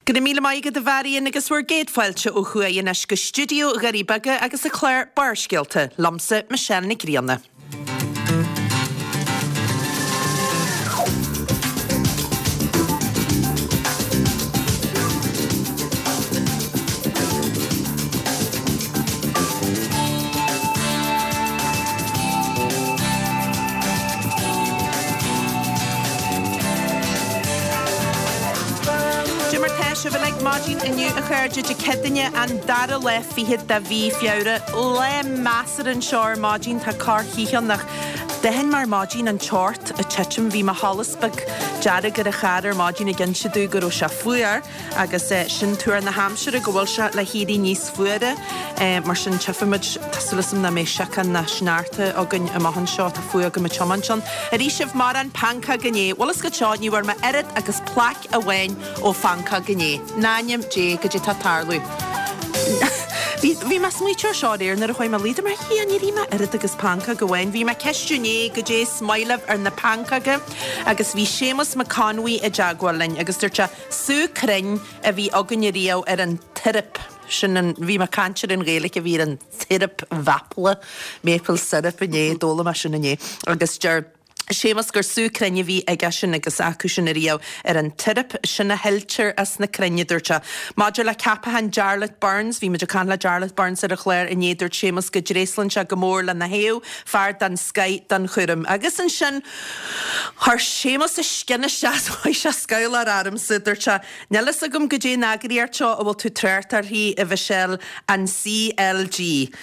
Go raibh míle maith agat a Mharion agus bhur gcéad fáilte ó thuaidh anois go stiúideo Dhoirí Beaga agus an clár Barrscéalta, liomsa Michelle Nic Grianna. Cad é mar tá sibh uilig maidin inniu a chairde Dé Céadaoine an dara lá fichead de mhí Feabhra. Lá measartha anseo ar maidin, tá corrchith ann ach d'aithin mé ar maidin an teocht ag titim. Bhí mo sholas beag dearg ar an charr ar maidin ag inse domh go raibh sé fuar. Agus sin tuar na haimsire, go bhfuil sé le héirí níos fuaire. Mar sin, tchífimid, tá súil agam nach mbeidh síocán ná sneachta againn amach anseo, tá fuath agam ag tiomáint ann. Ar ith sibh mórán pancóg inné? Bhfuil fhios agat seo, ní bhfuair mé oiread agus plaic amháin ó phancóg inné. In ainm Dé, goidé tá ag tarlú. Bhí, bhí mé ag smaoitiú ar seo aréir nuair a chuaigh mé a luí, dúirt mé, a Dhia, níor ith mé oiread agus pancóg amháin. Bhí mé ag ceistiú inné goidé is maith libh ar na pancóga agus bhí Séamus Mac Conmhaí i dteagmháil linn agus dúirt sé, Sú crainn a bhí againne riamh ar an tsiorup, sin an, bhí mé ag caint ar an Ghaeilge a bhí ar an tsiorup mhaiple, maple syrup inné, d'fhoghlaim mé sin inné, agus deir Séamus gur sú crainn a bhí aige sin agus acu sin ariamh ar an tsiorup, sin a shiltear as na crainn, a dúirt sé. Maidir le ceapachán Jarlath Burns, bhí muid ag caint le Jarlath Burns ar an chlár inné, dúirt Séamus go dtréaslann sé go mór lena thaobh, fear den scoith don chúram. Agus ansin, Chuir Séamus a scian isteach is chuaigh sé scabhláir ormsa. Dúirt sé, Níl fhios agam goidé an eagraíocht seo a bhfuil tú trácht uirthi, a Mhichelle, an CLG.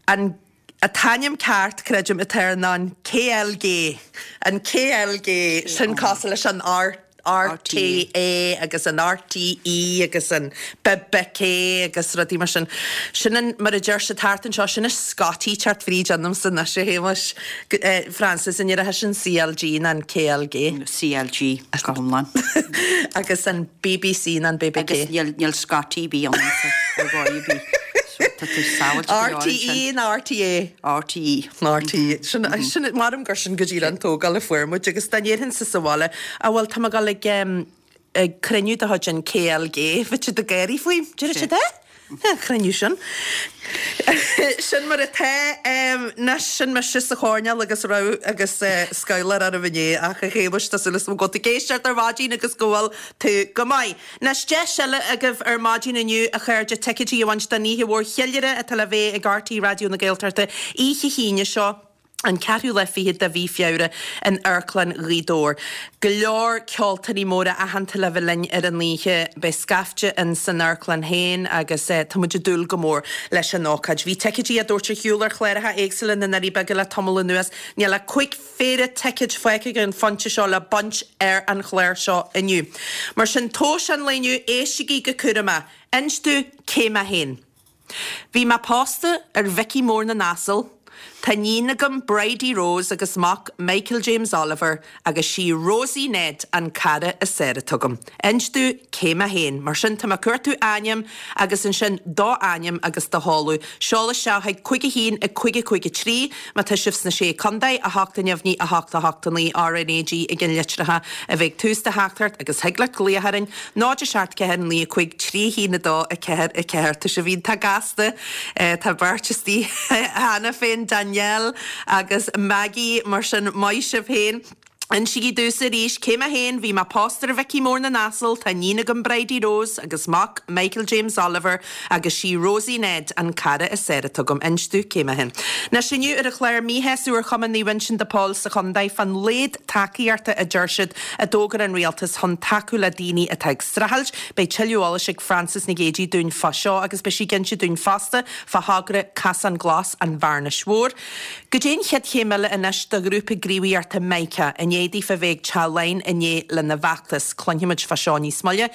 An t-ainm ceart, creidim, atá air ná an KLG. An KLG, sin cosúil leis an R. RTÉ agus an RTE agus an bbK agus rudaí mar sin. Sin an, mar a deir siad thart anseo, sin an Scottie teacht fríd ionamsa anois, a Shéamais. Frances, an ndéarfá sin CLG ná an KLG? CLG go hiomlán. Agus an BBC ná an bbK? Agus níl, níl Scottie ar bith ionamsa ar dhóigh ar bith. So tá tú sábháilte go leor ansin. RTE ná RTÉ? RTE. RTE. Sin, sin, maram gur sin go díreach an tógáil a fuair muid agus dá ndéarfainnse sa bhaile, á bhuel tá mé ag dul ag, ag cruinniú de chuid an KLG, bheadh siad ag gáirí faoi, déarfaidh siad eh? An cruinniú sin. Sin mar atá. Anois, sin mise sa choirnéal agus raibh agus scabhláir orm inné ach a Shéamais, tá súil agam go bhfuil tú ag éisteacht ar maidin agus go bhfuil tú go maith. Anois, deis eile agaibh ar maidin inniu, a chairde, ticéidí a bhaint don oíche mhór cheiliúrtha atá le bheith ag RTÉ Raidió na Gaeltachta oíche hAoine seo, an ceathrú lá fichead de mhí Feabhra in Amharclann Ghaoth Dobhair. Go leor ceoltóirí móra aitheanta le bheith linn ar an oíche. Beidh scaifte in san amharclann féin agus tá muid ag dúil go mór leis an ócáid. Bhí ticéidí á dtabhairt ar shiúl ar chláracha éagsúla na nDoirí Beaga le tamall anuas. Níl ach 5 phéire ticéid fágtha ag an phointe seo le baint ar an chlár seo inniu. Mar sin, tomhais an lae inniu, éistigí go cúramach. Inis domh cé mé féin. Bhí mé pósta ar Mhicí Mór na nAsal, tá iníon agam Bridie Rose agus mac Michael James Oliver agus sí Rosie Ned an cara is fearr atá agam. Inis domh cé mé féin. Mar sin, tá mé ag cuartú ainm agus ansin do ainm agus do sheoladh. Seol isteach chuig 5 1 5 5 3 má tá sibh sna Sé Contae, 8 neamhní 8 8 9 RnaG i gceannlitreacha a bheidh ag tús do theachtaireacht agus thig leat glaoch orainn 0 7 4 9 5 3 1 2 4 4 Tá sibh iontach gasta. Tá beirt istigh cheana féin, Danielle agus Maggie, mar sin maith sibh féin. Insígí domhsa arís cé mé féin, bhí mé pósta ar Mhicí Mór na nAsal, tá iníon agam Bridie Rose agus mac Michael James Oliver agus sí Rosie Ned an cara is fearr atá agam. Inis domh cé mé féin. Anois inniu ar an chlár míshásamh ar Chumann Naomh Uinseann de Pól sa chontae fán laghad tacaíochta a deir siad a d'fhógair an rialtas chun tacú le daoine atá ag streachailt. Beidh tuilleadh eolais ag Frances Nic Géadaigh dúinn fá seo agus beidh sí ag inse dúinn fosta fá thogra Casán Glas an Bhearnais Mhóir. Goidé an chéad chéim eile anois do ghrúpa gníomhaíochta Mica, i ndiaidh daofa bheith ag Teach Laighean inné lena bhfeachtas? Cluinfimid fá seo níos moille.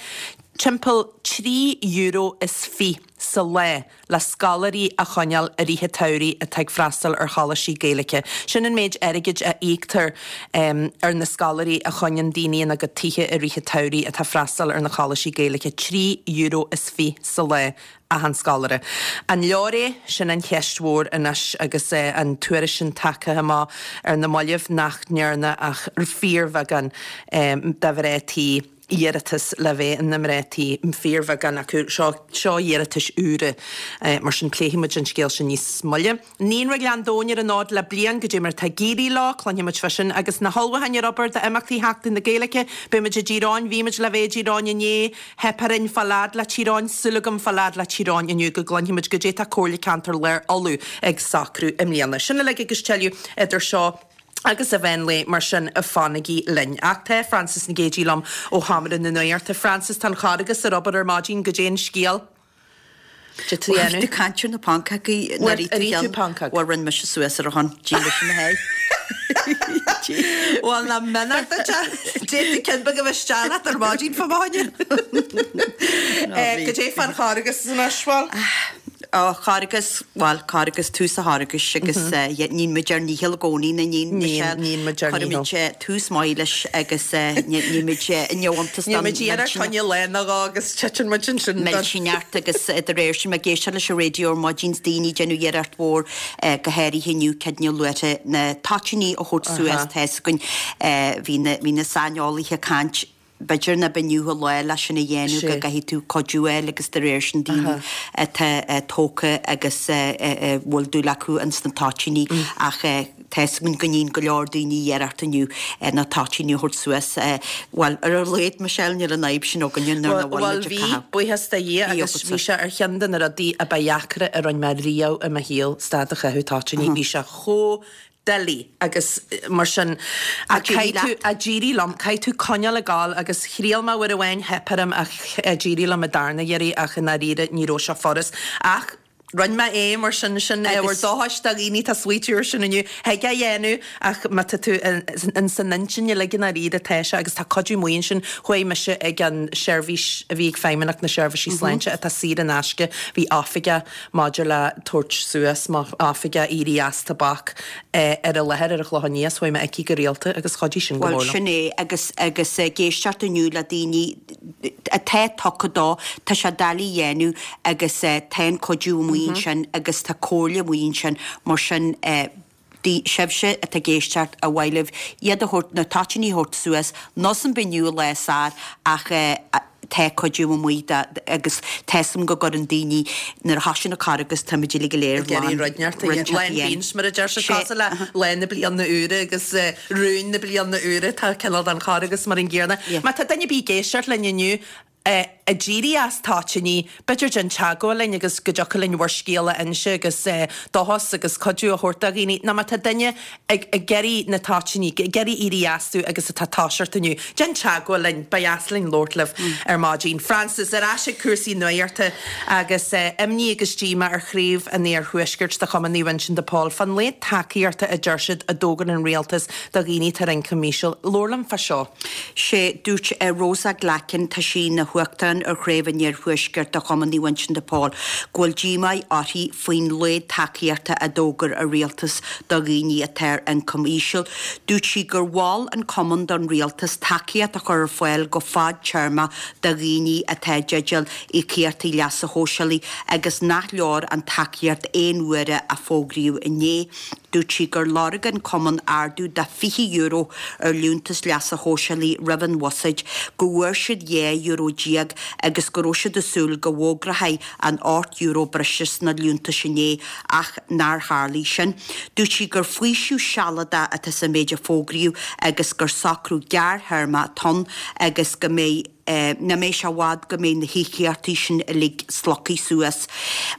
Timpeall €3 is fiche sa lá le scoláirí a choinneáil i rith an tsamhraidh atá ag freastal ar choláistí Gaeilge. Sin an méid airgid a íoctar ar na scoláirí a choinníonn daoine ina gcuid tithe i rith an tsamhraidh atá ag freastal ar na coláistí Gaeilge, €3 is fiche sa lá. achan scoláire. An leor é? Sin an cheist mhór anois agus an tuairisc sin tagtha amach ar na mallaibh nach ndearna ach fíorbheagán do mhná tí. Iarratas le bheith ina mná tí, fíorbheagán acu. Seo, seo iarratais úra. Mar sin pléifidh muid an scéal sin níos moille. Naíonra Ghleann Domhain ar an fhód le bliain, goidé mar atá ag éirí leo, cluinfidh muid fá sin. Agus na hullmhúcháin ar obair d'imeachtaí Sheachtain na Gaeilge, beidh muid i dTír Eoghain, bhí muid le bheith i dTír Eoghain inné, theip orainn fáil fhad le Tír Eoghain, súil agam fáil fhad le Tír Eoghain inniu go gcluinfidh muid goidé tá Comhairle Ceantair Lár Uladh ag socrú i mbliana. Sin uilig agus tuilleadh idir seo agus an mheán lae, mar sin fanaigí linn. Ach tá Frances Nic Géadaigh liom ó Sheomra na Nuachta. Frances, tá an Charghas ar obair ar maidin, goidé an scéal? Goidé tá á dhéanamh? Tú caint ar na pancógaí Bhuel, ar ith tú pancóg? Bhuel, rinne mise suas ar a shon, d'ith mise mo sháith. Bhuel, nach méanar duit é? D'fhéadfadh ceann beag a bheith isteach leat ar maidin fá mo choinne. Goidé fán Charghas anois, bhuel? Ó, Charghas, bhuel, Carghas, tús an Charghais agus níonn muid ár ndícheall i gcónaí, nach níonn, Michelle? Níonn, níonn muid ár ndícheall. Cuirimid tús maith leis agus níonn muid neamhiontas don Níonn muid iarracht fá choinne lá nó dhó agus titeann muid ansin don. Millteanach agus de réir sin, ag éisteacht leis an raidió ar maidin, 's daoine ag déanamh iarracht mhór, go háirithe inniu, cead na luaithe, na toitíní a thabhairt suas, tá 'fhios againn, bhí na, bhí na saineolaithe ag caint, B'fhéidir nach b'inniu an lá leis sin a dhéanamh, go gcaithfidh tú cuidiú a fháil agus de réir sin daoine atá tógtha agus a bhfuil dúil acu ins na toitíní ach tá 'fhios againn go níonn go leor daoine iarracht inniu na toitíní a thabhairt suas. Bhuel, ar a laghad, Michelle, níl an fhadhb sin againne nuair nach bhfuil Bhuel, muid ag bhí, caitheamh. buíochas do Dhia, agus bhí sé ar cheann de na rudaí a ba dheacra a rinne mé riamh i mo shaol, stad a chaitheamh toitíní. Bhí sé chomh doiligh agus mar sin ach d'éirigh caithfidh tú, leat. ach d'éirigh liom, caithfidh tú coinneáil ag gabháil agus thriail mé uair amháin, theip orm ach d'éirigh liom an darna iarraidh ach i ndáiríre ní raibh sé furast ach rinne mé é mar sin, sin ábhar Agus. dóchais do dhaoine atá ag smaoitiú ar sin inniu, thig é a dhéanamh ach má tá tú in san intinn uilig i ndáiríre tá sé agus tá cuidiú maith ansin, chuaigh mise ag an seirbhís a bhí ag Feidhmeannacht na Seirbhísí Sláinte atá saor in aisce, bhí oifigeach maidir le tabhairt suas, mar oifigeach éirí as tobac ar an láthair ar an Chlochán Liath, chuaigh mé aici go rialta agus chuidigh sin go Bhuel, mór liom. sin é, agus, agus ag éisteacht inniu le daoine atá tugtha dó, tá sé doiligh a dhéanamh agus tá an cuidiú amuigh ansin agus tá comhairle amuigh ansin, mar sin, Sibhse atá ag éisteacht, ar mhaith libh iad a thabhairt, na toitíní a thabhairt suas, nós an b'inniu an lá is fearr ach tá cuidiú amuigh do, agus tá 'fhios a'm go gcuireann daoine, nuair a thosaíonn an Carghas táimid uilig go léir Ag iarraidh rud inteacht a dhéanamh, lá an bhinse mar a deir siad, cosúil le lá na bliana úire agus rúin na bliana úire, tá cineál den Charghas mar an gcéanna. Má tá duine ar bith ag éisteacht linn inniu, ag éirí as toitíní, b'fhéidir déan teagmháil linn agus go dtiocfadh linn bhur scéal a inse agus dóchas agus cuidiú a thabhairt do dhaoine. Nó má tá duine ag ag iarraidh na toitíní, ag iarraidh éirí astu agus atá ag toiseacht inniu, déan teagmháil linn, ba dheas linn labhairt libh ar maidin. Frances, ar ais ag cúrsaí nuachta agus imní agus díomá ar chraobh an Iarthuaiscirt de Chumann Naomh Uinseann de Pól fán laghad tacaíochta a deir siad a d'fhógair an rialtas do dhaoine atá ar ioncam íseal. Labhair liom fá seo. Sé, dúirt Rosa Glackin, tá sí ina huachtarán ar Chraobh an Iarthuaiscirt de Chumann Naomh Uinseann de Pól, go bhfuil díomá uirthi faoin laghad tacaíochta a d'fhógair an rialtas do dhaoine atá ar ioncam íseal. Dúirt sí gur mhol an cumann don rialtas tacaíocht a chur ar fáil go fadtéarmach do dhaoine atá i dteideal íocaíochtaí leasa shóisialaigh agus nach leor an tacaíocht aon uaire a fógraíodh inné. Dúirt sí gur lorg an cumann ardú de €20 ar liúntas leasa shóisialaigh roimh an bhuiséad, go bhfuair siad €12 agus go raibh siad ag súil go bhfógrófaí an €8 breise sna liúntais inné ach nár tharlaigh sin. Dúirt sí gur faoiseamh sealadach atá sa méid a fógraíodh agus gur socrú gearrthéarmach atá ann agus go mbeidh nach mbeidh sé i bhfad go mbeidh na híocaíochtaí sin uilig slogtha suas.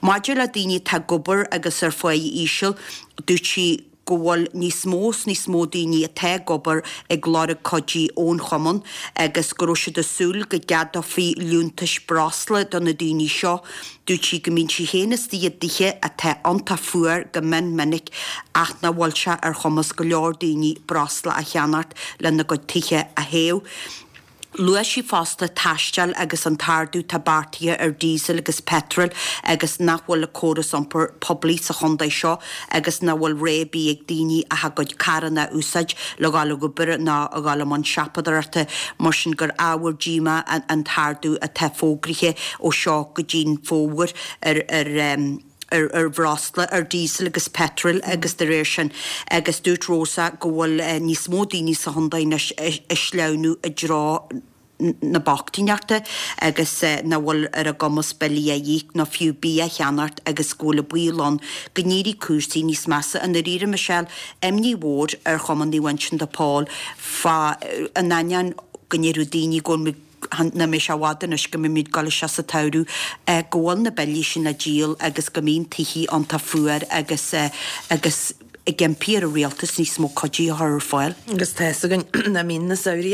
Maidir le daoine atá ag obair agus ar pháigh íseal, dúirt sí go bhfuil níos mó is níos mó daoine atá ag obair ag lorg cuidí ón chumann agus go raibh siad ag súil go gceadófaí liúntais breosla do na daoine seo. Dúirt sí go mbíonn sí féin istigh i dtithe atá iontach fuar go mion minic ach nach bhfuil sé ar chumas go leor daoine breosla a cheannacht lena gcuid tithe a théamh. Luaigh sí fosta taisteal agus an t-ardú atá beartaithe ar diesel agus petrol agus nach bhfuil an córas iompair poiblí sa chontae seo agus nach bhfuil rogha ar bith ag daoine ach a gcuid carranna a úsáid le dhul ag obair nó a dhul i mbun siopadóireachta mar sin gur ábhar díomá an t-ardú atá fógraithe ó seo go dtí'n fómhar ar ar ar bhreosla, ar diesel agus petrol agus de réir sin agus dúirt Rosa go bhfuil níos mó daoine sa chontae anois ag sleamhnú i dtreo. na bochtaineachta agus nach bhfuil ar a gcumas billí a íoc nó fiú bia a cheannacht agus go bhfuil an baol ann go n-éireoidh cúrsaí níos measa. I ndáiríre, Michelle, imní mhór ar Chumann Naomh Uinseann de Pól fá in ainneoin go ndéarfadh daoine go bhfuil nach mbeidh sé i bhfad anois go mbeimid ag dul isteach sa tsamhradh, go bhfuil na billí sin le díol agus go mbíonn tithe iontach fuar agus agus ag impí ar an rialtas níos mó cuidithe a chur ar fáil. Agus tá fhios againn nach mbíonn na samhraí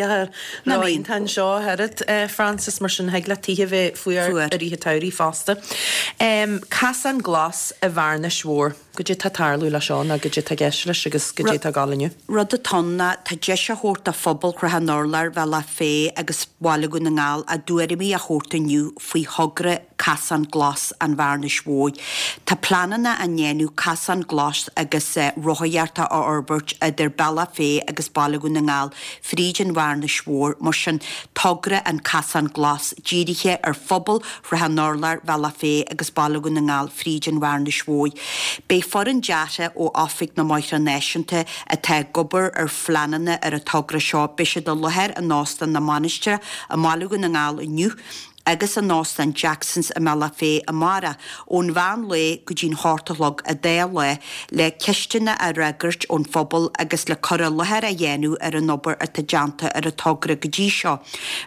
ró-iontach anseo ach oiread, Frances, mar sin thig le tithe bheith fuar i rith an tsamhraidh fosta. Casán Glas i bhFearnais Mhór. Goidé tá ag tarlú leis seo nó goidé tá i gceist leis agus goidé tá ag dul inniu? Rud atá ann ná tá deis á thabhairt do phobal Shrath an Urláir, Bhealach Féich agus Bhaile Dhún na nGall a dtuairimí a thabhairt inniu faoi thogra Casán Glas an Bhearnais Mhóir. Tá pleananna á ndéanamh casán glas agus rothaíochta a fhorbairt idir Bealach Féich agus Baile Dhún na nGall fríd an Bhearnais Mhór. Mar sin, togra an Casán Glas dírithe ar phobal Shrath an Urláir, Bhealach Féich agus Baile Dhún na nGall fríd an Bhearnais Mhóir. Beidh foireann deartha ó Oifig na mBóithre Náisiúnta atá ag obair ar phleananna ar an togra seo, beidh siad i láthair in Óstán na Mainistreach i mBaile Dhún na nGall inniu agus in Óstán Jacksons i mBealach Féich amárach ón mheán lae go dtí'n hocht a chlog an dá lá le ceisteanna a fhreagairt ón phobal agus le cur i láthair a dhéanamh ar an obair atá déanta ar an togra go dtí seo.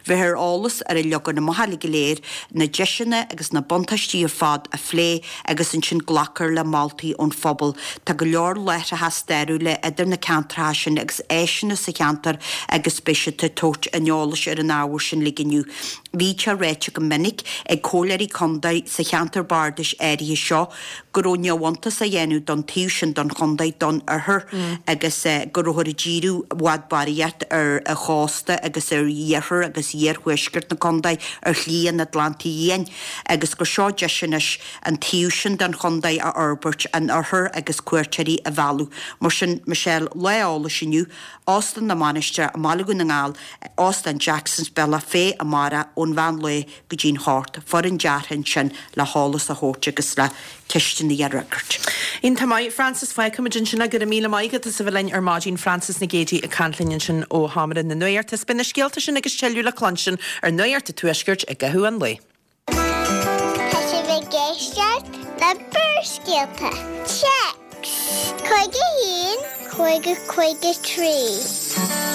Bheith ar eolas ar an leagan amach uilig go léir, na deiseanna agus na buntáistí ar fad a phlé agus ansin glacfar le moltaí ón phobal. Tá go leor láithreacha stairiúla idir na ceantracha sin agus áiseanna sa cheantar agus beidh siad ag tabhairt an eolais ar an ábhar sin uilig inniu. Bhí sé ráite go minic ag comhairleoirí contae sa cheantar bardais áirithe seo go raibh neamhiontas á dhéanamh don taobh sin don chontae, don oirthear, agus go rabhthar ag díriú i bhfad barraíocht ar an chósta agus ar iarthar agus iarthuaisceart na contae ar Shlí an Atlantaigh Fhiáin agus gur seo deis anois an taobh sin den chontae a fhorbairt, an oirthear agus cuairteoirí a mhealladh. Mar sin, Michelle, lá eolais inniu, Óstán na Mainistreach i mBaile Dhún na nGall, Óstán Jacksons, Bealach Féich amárach ón mheán lae go dtí'n hocht, foireann deartha ansin le heolas a thabhairt agus le ceisteanna a fhreagairt. Iontach maith, Frances. Fágfaimid ansin é. Go raibh míle maith agat as a bheith linn ar maidin. Frances Nic Géadaigh ag caint linn ansin ó Sheomra na Nuachta. Is beidh na scéalta sin agus tuilleadh le cluinstin ar Nuacht an Tuaiscirt i gcaitheamh an lae. Tá sibh ag éisteacht le Barrscéalta. Téacs 51 50 53.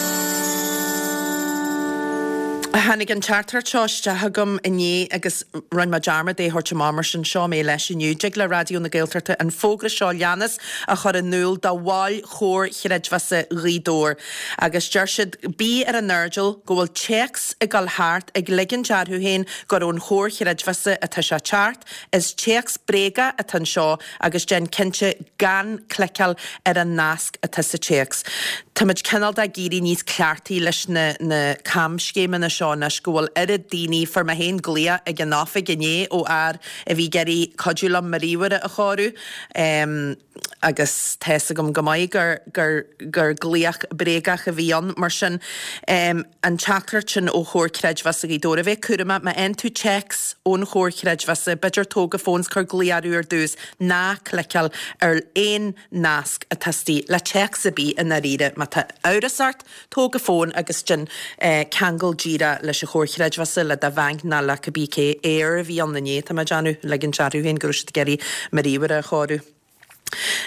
Tháinig an teachtaireacht seo isteach agam inné agus rinne mé dearmad é a thabhairt amach mar sin seo mé leis inniu. Dtig le Raidió na Gaeltachta an fógra seo leanas a chur in iúl do bhaill Chomhar Chreidmheasa Ghaoth Dobhair agus deir siad, Bí ar an airdeall go bhfuil téacs ag dul thart ag ligint orthu féin gur ón Chomhar Chreidmheasa atá sé teacht, is téacs bréagach atá anseo agus déan cinnte gan cliceáil ar an nasc atá sa téacs. Táimid cineál de ag éirí níos cleachtaí leis na na camscéimeanna seo anois go bhfuil oiread daoine, fuair mé féin glaoch ag an oifig inné ó fhear a bhí ag iarraidh cuidiú liom mo ríomhaire a chóiriú. Agus tá fhios agam go maith gur, gur, gur glaoch bréagach a bhí ann. Mar sin, an teachtaireacht sin ó Chomhar Creidmheasa Ghaoth Dobhair, a bheith cúramach, má fhaigheann tú téacs ón Chomhar Chreidmheasa, b'fhéidir tóg an fón 's cuir glaoch orthu ar dtús, ná cliceáil ar aon nasc atá istigh le téacs ar bith i ndáiríre. Má tá amhras ort, Tóg an fón agus déan ceangal díreach leis an Chomhar Chreidmheasa, le do bhanc ná le cibé cé. Eir a bhí ann inné, tá mé ag déanamh, ligint orthu féin go raibh siad ag iarraidh mo ríomhaire a chóiriú.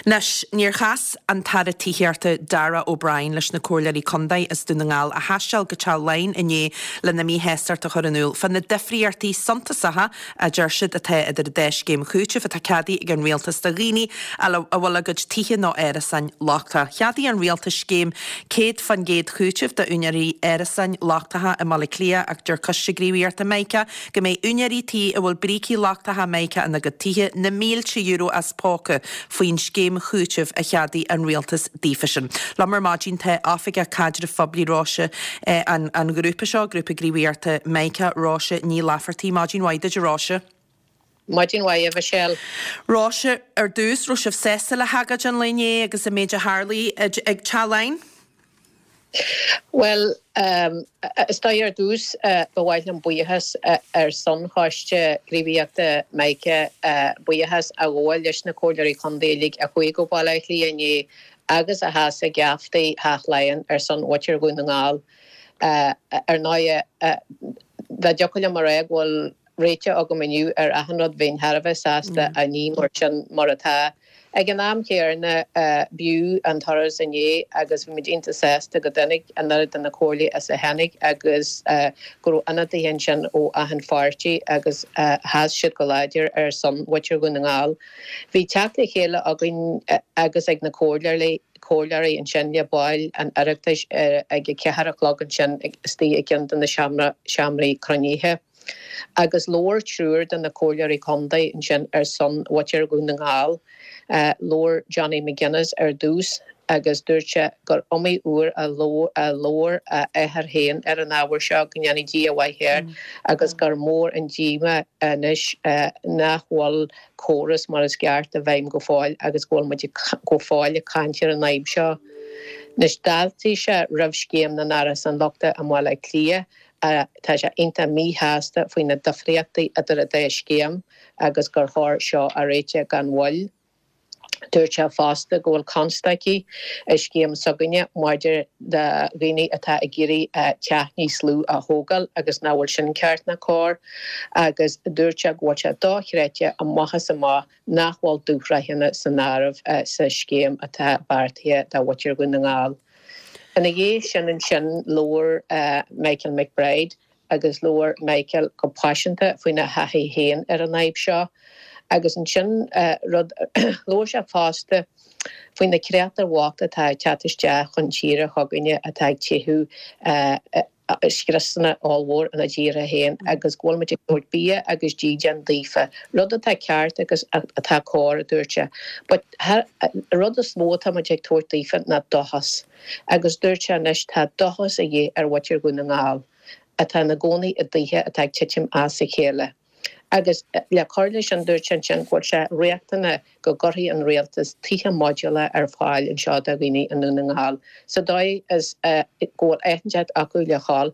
Anois, níor chas an tAire Tithíochta Darragh O'Brien leis na Comhairleoirí Contae as Dún na nGall a thaisteal go Teach Laighean inné lena míshástacht a chur in iúl fá na difríochtaí suntasacha a deir siad atá idir an dá scéim chúitimh atá ceadaithe ag an rialtas do dhaoine a bhfuil a gcuid tithe nó árasáin lochtaithe. Cheadaigh an rialtas scéim 100% chúitimh d'úinéirí árasáin lochtacha i mBaile Átha Cliath ach deir Coiste Gníomhaíochta Mica go mbeidh úinéirí tí a bhfuil brící lochtacha Mica ina gcuid tithe na mílte euro as póca faoin scéim chúitimh a cheadaigh an rialtas daofasan. Liom ar maidin tá Oifigeach Caidrimh Phoiblí Róise an ghrúpa seo, Grúpa Gníomhaíochta Mica, Róise Ní Laifeartaigh. Maidin mhaith duit a Róise. Maidin mhaith a Mhichelle. Róise, ar dtús, raibh sibh sásta le hagóid an lae inné agus an méid a tharlaigh ag Teach Laighean? Bhuel, is dóigh ar dtús ba mhaith liom buíochas ar son Choiste Gníomhaíochta Mica buíochas a ghabháil leis na Comhairleoirí Contae uilig a chuaigh go Baile Átha Cliath inné agus a sheas ag geaftaí Theach Laighean ar son mhuintir Dhún na nGall. Ar ndóighe, dá dtiocfadh liom a rá go bhfuil réiteach agam inniu ar achan rud, bheinn thar a bheith sásta ach ní mar sin mar atá. Ag an am chéanna, b'fhiú an turas inné agus bhí muid iontach sásta go dtáinig an oiread de na comhairlí is a tháinig agus go raibh ionadaithe ansin ó achan pháirtí agus sheas siad go láidir ar son mhuintir Dhún na nGall. Bhí teacht le chéile againn agus ag na comhairleoirí comhairleoirí ansin le baill an Oireachtais ag a ceathair a chlog ansin istigh i gceann de na seomraí cruinnithe. Agus labhair triúr de na comhairleoirí contae ansin ar son mhuintir Dhún na nGall. Labhair Johnny McGuinness ar dtús agus dúirt sé gur iomaí uair a labhair a athair féin ar an ábhar seo, go ndéanfaidh Dia a mhaith air, agus gur mór an díomá anois nach bhfuil córas mar is ceart i bhfeidhm go fóill agus go bhfuil muid go fóill ag caint ar an fhadhb seo. Anois d'fháiltigh sé roimh scéim na n-árasán lochta i mBaile Átha Cliath. Tá sé iontach míshásta faoi na difríochtaí idir an dá scéim agus gur chóir seo a réiteach gan mhoill. Dúirt sé fosta go bhfuil constaicí i scéim s'againne maidir do dhaoine atá ag iarraidh teach níos lú a thógáil agus nach bhfuil sin ceart ná cóir agus dúirt sé go bhfuil sé dochreidte amach is amach nach bhfuil dúshraitheanna san áireamh sa scéim atá beartaithe do mhuintir Dhún na nGall. Ina dhiaidh sin ansin labhair Michael McBride agus labhair Michael go paiseanta faoina thaithí féin ar an fhadhb seo. Agus ansin rud, labhair sé fosta faoi na créatúir bhochta atá ag teacht isteach chun tíre chugainne atá ag teitheadh scriosanna ollmhór ina dtíortha féin agus go bhfuil muid ag tabhairt bia agus dídean daofa, rud atá ceart agus atá cóir, a dúirt sé. But rud is mó atá muid ag tabhairt daofa ná dóchas. Agus dúirt sé anois tá dóchas a dhíth ar mhuintir Dhún na nGall atá ina gcónaí i dtithe atá ag titim as a chéile. Agus le cur leis sin dúirt sé ansin go bhfuil sé riachtanach go gcuirfidh an rialtas tithe modúlacha ar fáil anseo do dhaoine i nDún na nGall sa dóigh is go bhfuil áit inteacht acu le dhul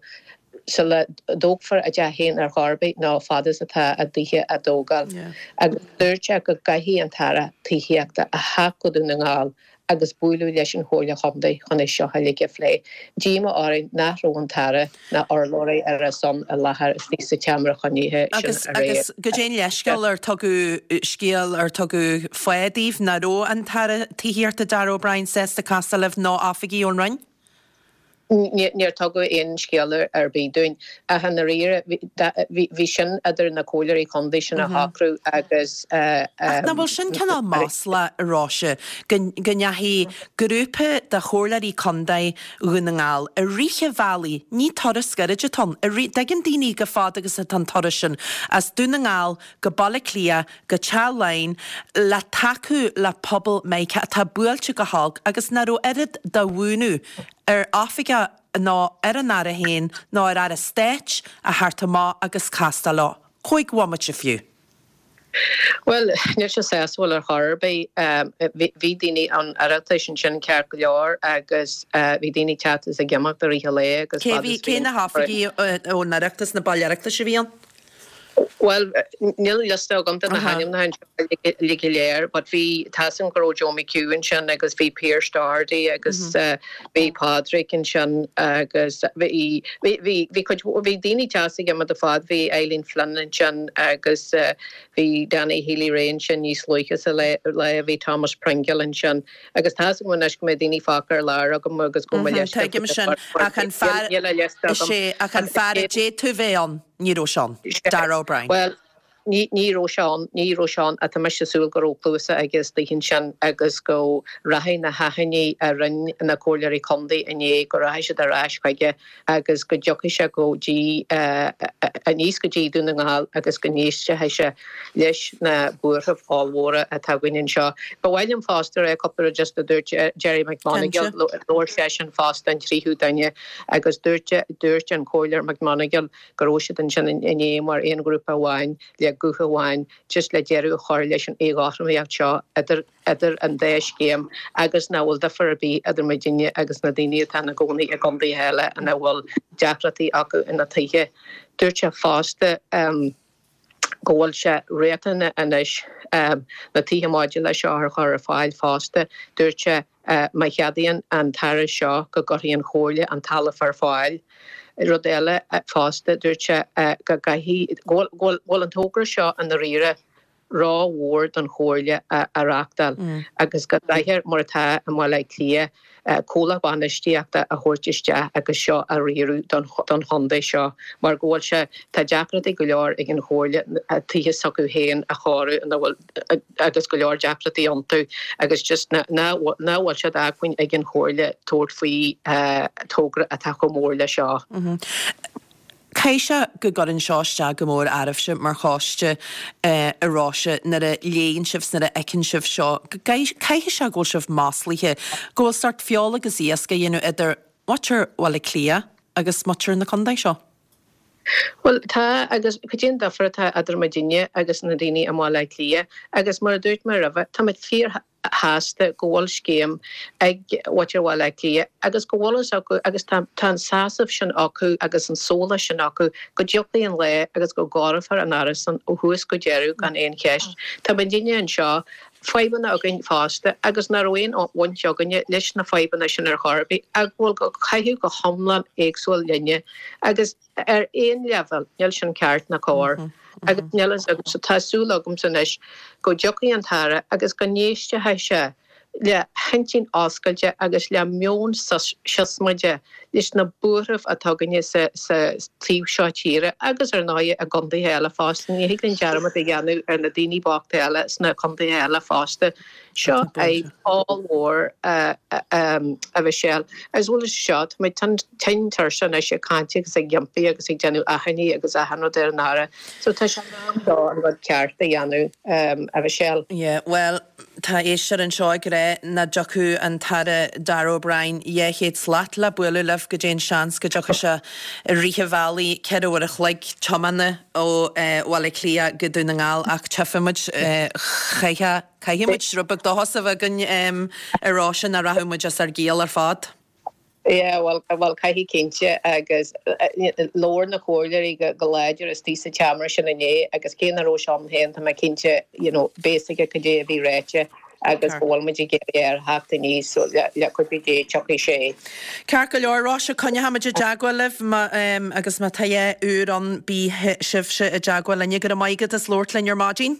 sula dtógfar a dteach féin ar chor ar bith nó fad is atá a dtithe á dtógáil. Agus dúirt sé go gcaithfidh an tAire Tithíochta a theacht go Dún na nGall agus bualadh leis an Chomhairle Chontae chun é seo uilig a phlé. Díomá orainn nach raibh an tAire ná urlabhraí ar a son i láthair istigh sa tseomra cruinnithe sin aréir. Agus goidé an leithscéal ar tugadh scéal ar tugadh fáth daoibh nach raibh an tAire Tithíochta Darragh O'Brien sásta castáil libh nó oifigigh ón Roinn? Níor tugadh aon scéala ar bith dúinn. Ach i ndáiríre, bhí sin idir na comhairleoirí contae sin a shocrú agus. Ach nach bhfuil sin cineál maslach, a Róise, go ndeachaigh grúpa de chomhairleoirí contae Dhún na nGall i rith an bhealaigh, ní turas gairid atá ann, i rith, dtuigeann daoine chomh fada agus atá an turas sin, as Dún na nGall go Baile Átha Cliath go Teach Laighean le tacú le pobal Meiriceá atá buailte go holc agus nach raibh oiread de mhúineadh ar oifigeach nó ar an Aire féin nó ar Aire Stáit a theacht amach agus castáil leo. Chúig bhomaite fiú. Bhuel, níl sé sásúil ar chor ar bith. Bhí daoine an Oireachtais ansin ceart go leor agus bhí daoine ag teacht is ag imeacht i rith an lae agus fad is bhí. Cé na hoifigigh ón Oireachtas, na baill Oireachtais a bhí ann? Bhuel, níl liosta agam de na hainmneacha anseo uilig go léir, but bhí, tá 'fhios a'm go raibh Joe McHugh ansin agus bhí Pearse Doherty agus bhí Pádraig ansin agus bhí, bhí, bhí, bhí cuid, bhí daoine ag teacht is ag imeacht ar fad, bhí Eileen Flynn ansin agus bhí Danny Healy-Rae ansin níos luaithe sa lá, bhí Thomas Pringle ansin agus tá 'fhios agam anois go mbeidh daoine fágtha ar lár agam agus go mbeidh liosta Tuigim sin, ach an fear, níl a liosta agam. Is é, ach an fear a d'fhéadfadh bheith ann. Ní raibh sé ann. Darragh O'Brien. Bhuel, ní, ní raibh sé ann, ní raibh sé ann, ach tá mise ag súil go raibh cluasa aige istigh ansin agus go rachaidh na hachainí a rinne na comhairleoirí contae inné, go rachaidh siad ar ais chuige agus go dtiocfaidh sé go dtí, aníos go dtí Dún na nGall agus go n-éistfidh sé leis na buarthaibh ollmhóra atá againn anseo. Ba mhaith liom fosta a rá cúpla rud just a dúirt Gerry McMonagle, labhair seisean fosta, an tríú duine, Agus dúirt, dúirt an Comhairleoir McMonagle go raibh siad ansin inné mar aon ghrúpa amháin le guth amháin just le deireadh a chur leis an éagothromaíocht seo idir, idir an dá scéim agus nach bhfuil difear ar bith idir muidinne agus na daoine atá ina gcónaí i gcontaetha eile ina bhfuil deacrachtaí acu ina dtithe. Dúirt sé fosta go bhfuil sé riachtanach anois na tithe modúlacha seo a chur ar fáil fosta. Dúirt sé má cheadaíonn an tAire seo go gcuirfidh an Chomhairle an talamh ar fáil. Rud eile fosta, dúirt sé go gcaithfidh, go bhfuil an togra seo i ndáiríre rómhór don Chomhairle a reáchtáil agus go gcaithfear, mar atá i mBaile Átha Cliath, comhlacht bainistíochta a thabhairt isteach agus seo a riaradh don chontae seo mar go bhfuil sé, tá deacrachtaí go leor ag an Chomhairle tithe s'acu féin a chóiriú ina bhfuil agus go leor deacrachtaí iontu agus just nach bhfuil sé d'acmhainn ag an Chomhairle tabhairt faoi togra atá chomh mór le seo. Caithfidh sé go gcuireann seo isteach go mór oraibhse mar choiste a Róise nuair a léann sibh 's nuair a fheiceann sibh seo. Caithfidh sé go bhfuil sibh maslaithe, go bhfuil sórt feoil agus iasc á dhéanamh idir muintir Bhaile Átha Cliath agus muintir na contae seo. Bhuel, tá, agus cad é an difear atá idir muidinne agus na daoine i mBaile Átha Cliath? Agus mar a dúirt mé roimhe, táimid fíorshásta go bhfuil scéim ag muintir Bhaile Átha Cliath agus go bhfuil fhios acu agus tá tá an sásamh sin acu agus an sólás sin acu go dtiocfaidh an lá agus go gcóireofar an árasán ó thús go deireadh gan aon cheist. Tá muidinne anseo fadhbanna againn fosta agus nach raibh aon bhaint againne leis na fadhbanna sin ar chor ar bith ach go bhfuil ag caitheamh go hiomlán éagsúil linne agus ar aon leibhéal níl sin ceart ná cóir agus níl fhios agamsa, tá súil agamsa anois go dtiocfaidh an tAire agus go n-éistfidh sé le hintinn oscailte agus le meon siosmaide leis na buairimh atá againne sa taobh seo tíre agus ar ndóigh i gcontaetha eile fosta. Ní thig linn dearmad a dhéanamh ar na daoine bochta eile sna contaetha eile fosta. Seo fadhb ollmhór a Mhichelle. As well as seo, tá muid tinn tuirseach anois ag caint agus ag impí agus ag déanamh achainí agus achan rud ar an Aire. So tá sé in am dó an rud ceart a dhéanamh, a Mhichelle. Yeah, bhuel, Tá éisteoir anseo ag rá nach dtiocfadh an tAire Darragh O'Brien 200 slat le bualadh libh, goidé an seans go dtiocfadh sé i rith an bhealaigh, 4 uair a chloig tiomána ó Bhaile Átha Cliath go Dún na nGall ach tchífidh muid, caithfidh muid rud beag dóchas a bheith againn a Róise nó rachaidh muid as ár gciall ar fad. Yeah, bhuel, bhuel, caithfidh cinnte agus labhair na comhairleoirí go láidir istigh sa tseomra sin inné agus cé nach raibh sé ann féin tá mé cinnte, you know, beidh a fhios aige cad é a bhí ráite agus go bhfuil muid ag iarraidh air theacht aníos so le cuidiú Dé tiocfaidh sé. Ceart go leor, Róise, coinneochaimid i dteagmháil libh má, agus má tá a dhath úr ann bí sibhse i dteagmháil linne. Go raibh maith agat as labhairt linn ar maidin.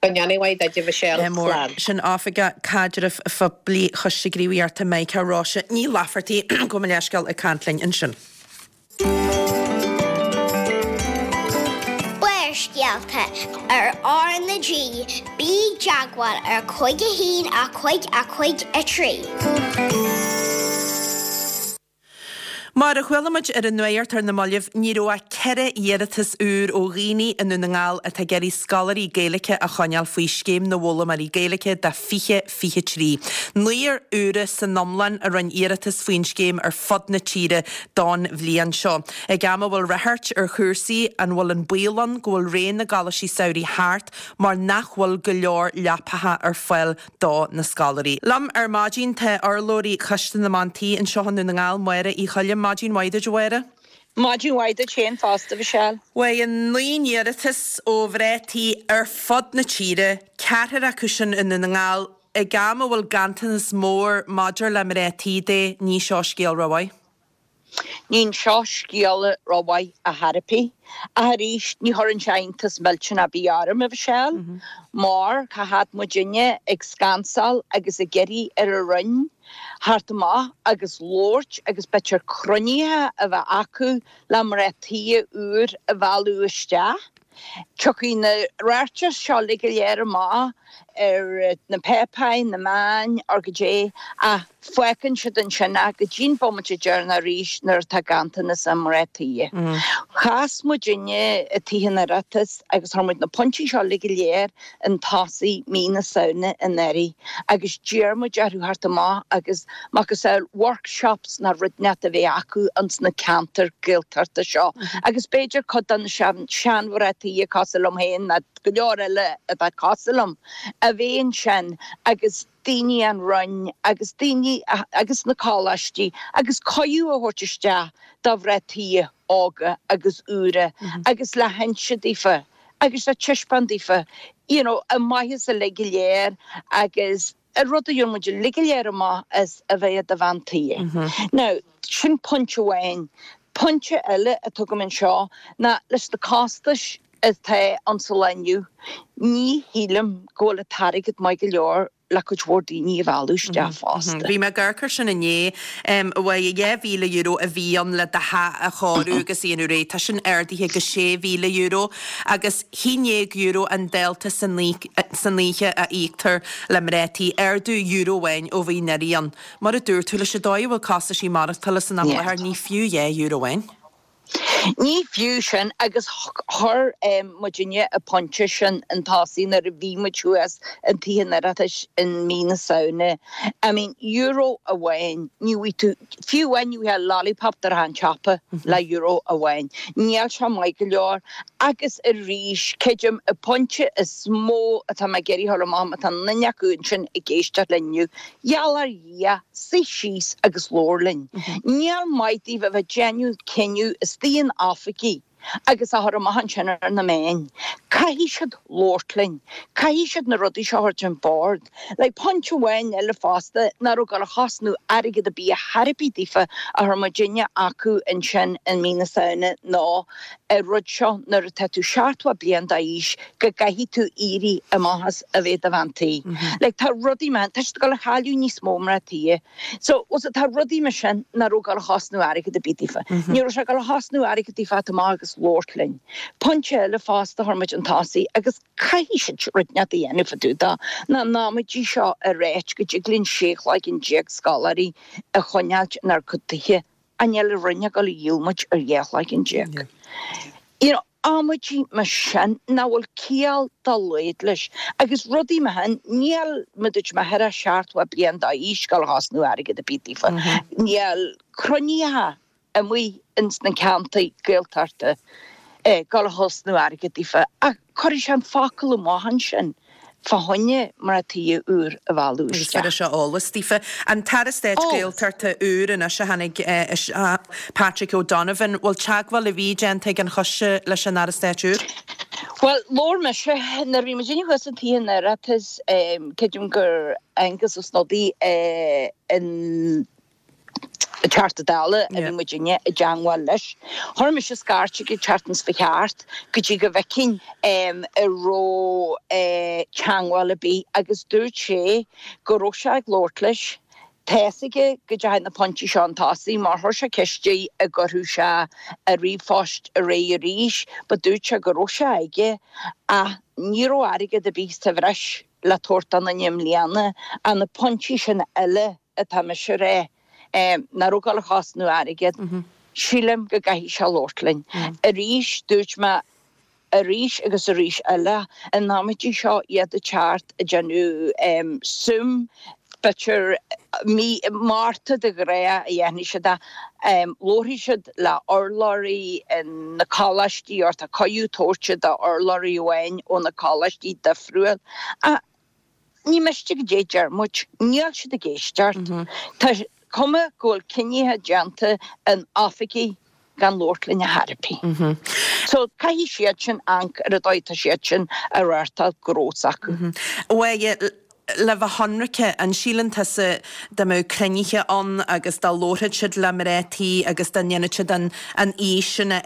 Go ndéana mhaith duit, a Mhichelle. Slán. Sin Oifigeach Caidrimh Phoiblí Choiste Gníomhaíochta Mica, Róise Ní Laifeartaigh, gabh mo leithscéal, ag caint linn ansin. Barrscéalta ar R na G, bí i dteagmháil ar 5 1 5 5 3. Mar a chuala muid ar an nuacht ar na mallaibh, ní raibh ach 4 iarratas úr ó dhaoine i nDún na nGall atá ag iarraidh scoláirí Gaeilge a choinneáil faoi Scéim na bhFoghlaimeoirí Gaeilge do 2023. Naonúr úra san iomlán a rinne iarratas faoin scéim ar fud na tíre don bhliain seo. Ag am a bhfuil ráchairt ar chúrsaí, an bhfuil an baol ann go bhfuil ré na gcoláistí samhraidh thart mar nach bhfuil go leor leapacha ar fáil do na scoláirí. Liom ar maidin tá urlabhraí Choiste na mBean Tí anseo i nDún na nGall, Máire Uí Choilm. Maidin mhaith duit, a Mháire. Maidin mhaith duit féin fosta, a Mhichelle. Bhuel, 9 n-iarratas ó mhná tí ar fud na tíre, ceathrar acu sin i nDún na nGall, ag am a bhfuil ganntanas mór maidir le mná tí de, ní seo scéal rómhaith. Ní seo scéal rómhaith ar chor ar bith. Ach arís, ní chuireann sé iontas millteanach ar bith orm, a Mhichelle, mar cá fhad muidinne ag scansáil agus ag iarraidh ar an Roinn theacht amach agus labhairt agus b'fhéidir cruinnithe a bheith acu le mná tí úr a mhealladh isteach. Tiocfaidh na ráitis seo uilig go léir amach ar na páipéir, na meáin, or goidé, ach fágann siad ansin é go dtí'n bomaite deireanach arís nuair atá ganntanas i mná tí. Chas muidinne i Tithe an Oireachtais agus chuir muid na pointí seo uilig go léir chun tosaigh mí na Samhna anuraidh agus d'iarr muid orthu theacht amach agus macasamhail workshops nó rud inteacht a bheith acu ins na ceantair Gaeltachta seo agus b'fhéidir cuid de na seanmhná tí cosúil liom féin nó go leor eile atá cosúil liom a bheith ansin agus daoine ón Roinn agus daoine agus na coláistí agus cuireadh a thabhairt isteach do mhná tí óga agus úra agus le hinse daofa agus le taispeáint daofa you know an maitheas uilig go léir agus an rud a gheobhann muid uilig go léir amach as a bheith i do bhean tí. Now, sin pointe amháin. Pointe eile atá agam anseo ná leis na costais atá ann sa lá inniu, ní shílim go bhfuil an t-airgead maith go leor le cuid mhór daoine a mhealladh isteach fosta. Bhí mé ag amharc air sin inné. Bhuel, €2,000 a bhí ann le do theach a chóiriú agus a dhéanamh réidh. Tá sin ardaithe go €6,000 agus €11 an dálta san oíche a íoctar le mná tí. Ardú euro amháin ó bhí anuraidh ann. Mar a dúirt tú, leis an dóigh a bhfuil costaisí maireachtála san am i láthair, ní fiú €2 amháin. Ní fiú sin agus chuir muidinne an pointe sin chun tosaigh nuair a bhí muid thuas in Tithe an Oireachtais in mí na Samhna. I mean, euro amháin, ní bhfaighidh tú, fiú amháin ní bhfaighfeá lollipop de an tsiopa le euro amháin. Níl sé maith go leor agus arís, creidim, an pointe is mó atá mé ag iarraidh a chur amach, má tá duine acu ansin ag éisteacht linn inniu, Gheall ar Dhia, suigh síos agus labhair linn. Níl maith daoibh a bheith ag déanamh cinneadh istigh in oifigí agus á chur amach ansin ar na meáin. Caithfidh siad labhairt linn. Caithfidh siad na rudaí seo a thabhairt ar bord. Like, pointe amháin eile fosta, nach raibh ag dul a chosnú airgead ar bith ar chor ar bith daofa a chuir muidinne acu ansin in mí na Samhna ná an rud seo nuair atá tú 70 bliain d'aois go gcaithfidh tú éirí amach as a bheith i do bhean tí. Like tá rudaí mar, tá siad ag dul a chailleadh níos mó mná tí. So, bhfuil 's agat, tá rudaí mar sin nach raibh ag dul a chosnú airgead ar bith daofa. Ní raibh sé ag dul a chosnú airgead daofa teacht amach agus labhairt linn. Pointe eile fosta a chuir muid chun tosaigh agus caithfidh siad rud inteacht a dhéanamh fá dtaobh de ná an amaidí seo a ráit go dtig linn 16 chloigeann scoláirí a choinneáilt inár gcuid tithe. Ach níl an Roinn ag dul a dhíol muid ar 12 chloigeann. You know, amaidí mar sin nach bhfuil ciall dá laghad leis. Agus rudaí mar sin, níl, mar dúirt mé, thar a 70 bliain d'aois ag dul a chosnú airgead ar bith daofa. Níl cruinnithe amuigh ins na ceantair Gaeltachta ag dul a chosnú airgead daofa. Ach cuirfidh sé an focal amach ansin fá choinne mná tí úr a mhealladh Agus isteach. bhéarfaidh sé eolas daofa. An tAire Stáit Eolas. Gaeltachta úr anois a tháinig isteach, Patrick O'Donovan, bhfuil teagmháil ar bith déanta ag an choiste leis an Aire Stáit úr? Bhuel, labhair mise, nuair a bhí muidinne thuas in Tithe an Oireachtais, creidim gur Aengus Ó Snodaigh an Teachta Dála a bhí muidinne i dteangmháil leis. Chuir mise scairt chuige an tseachtain seo chuaigh thart go dtí go bhfeicfinn an raibh teangmháil ar bith agus dúirt sé go raibh sé ag labhairt leis. Tá's aige go dteachaidh na pointí seo chun tosaigh mar chuir sé ceist air an gcuirfeadh sé a ríomhphost ar aghaidh arís but dúirt sé go raibh sé aige ach ní raibh airgead ar bith sa bhreis le tabhairt don duine i mbliana ach na pointí sin eile atá mise a rá, nach raibh ag dul a chosnú airgead, sílim go gcaithfidh sé labhairt linn. Arís, dúirt mé arís agus arís eile, an amaidí seo iad ag teacht ag déanamh suim, b'fhéidir mí Márta de ghnáth a dhéanfaidh siad é, labharfaidh siad le urlabhraí na coláistí or tá cuireadh tabhairte d'urlabhraí amháin ó na coláistí difriúil. Ach Ní miste goidé deir muid, níl siad ag éisteacht. Tá cuma go bhfuil cinnithe déanta in oifigí gan labhairt linn ar chor ar bith. So caithfidh siad sin amharc ar an dóigh atá siad sin ag reáchtáil gnó s'acu. Bhuel, le bheith ionraice, an síleann tusa dá mbeadh cruinnithe ann agus dá labharfadh siad le mná tí agus dá ndéanfadh siad an aois sin a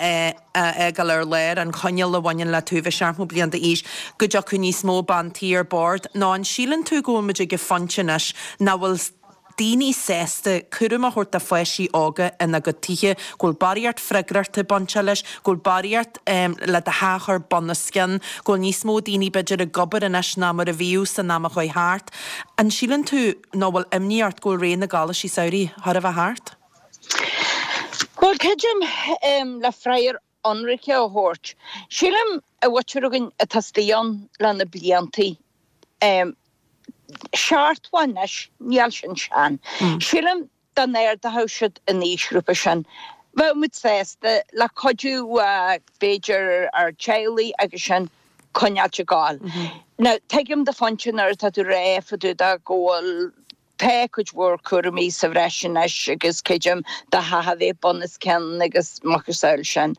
a fhágáil ar lár, an choinníoll a bhaineann le tú bheith 70 bliain d'aois, go dtiocfadh níos mó bean tí ar bord? Nó an síleann tú go bhfuil muid ag an phointe anois nach bhfuil daoine sásta cúram a thabhairt do pháistí óga ina gcuid tithe, go bhfuil barraíocht freagrachta bainteach leis, go bhfuil barraíocht le do theach a chur bun os cionn, go bhfuil níos mó daoine b'fhéidir ag obair anois ná mar a bhíodh san am a chuaigh thart. An síleann tú, nó bhfuil imní ort go bhfuil ré na gcoláistí samhraidh chóir a bheith thart? Bhuel, creidim, le freagra ionraice a thabhairt, sílim an mhuintir againn atá istigh ann le na bliantaí, 70 anois, níl sin sean. Sílim dá n-ardódh siad an aoisghrúpa sin, bheadh muid sásta, le cuidiú b'fhéidir ár dteaghlaigh agus sin, coinneáilt ag gabháil. Now, tuigim do phointe nuair atá tú ag rá fá dtaobh de go bhfuil, Tá cuid mhór cúraimí sa bhreis anois agus creidim do theach a bheith bun os cionn agus macasamhail sin.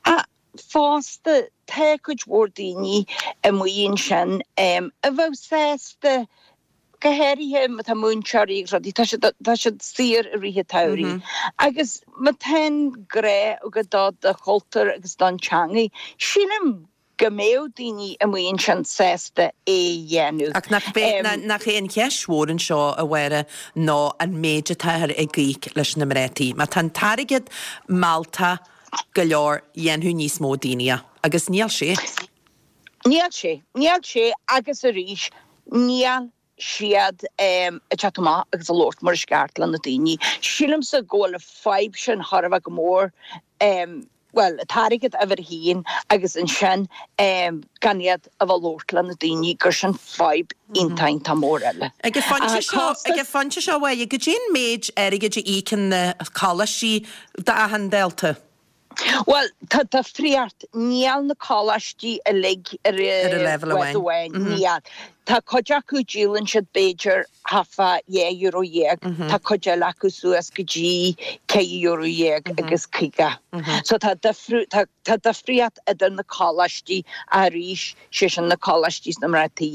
Ach fosta tá cuid mhór daoine amuigh ansin a bheadh sásta. Go háirithe má tá múinteoirí agus rudaí, tá siad, tá siad saor i rith an tsamhraidh. Agus má tá an grá agat do do chultúr agus don teangaidh, sílim go mbeadh daoine amuigh ansin sásta é a dhéanamh. Ach nach b'é, nach é an cheist mhór anseo, a Mháire, ná an méid atáthar ag íoc leis na mná tí. Má tá an t-airgead mealltach go leor, dhéanfadh níos mó daoine é. Agus níl sé. Níl sé. Níl sé agus arís, níl siad ag teacht amach agus ag labhairt mar is ceart le na daoine. Sílimse go bhfuil an fadhb sin thar a bheith go mór, bhuel, an t-airgead uimhir a haon agus ansin gan iad a bheith ag labhairt le na daoine gur sin fadhb iontach iontach mór eile. Ag an phointe seo, ag an phointe seo, a Mháire, goidé an méid airgid a íocann na coláistí d'achan dalta? Bhuel, tá difríocht. Níl na coláistí uilig ar an leibhéal bhád amháin. Níl. Tá cuid acu, díolann siad b'fhéidir thart fá €12 tá cuid eile acu suas go dtí €14 agus 50. So tá difriú, tá, tá difríocht idir na coláistí arís, sé sin na coláistí sna mná tí,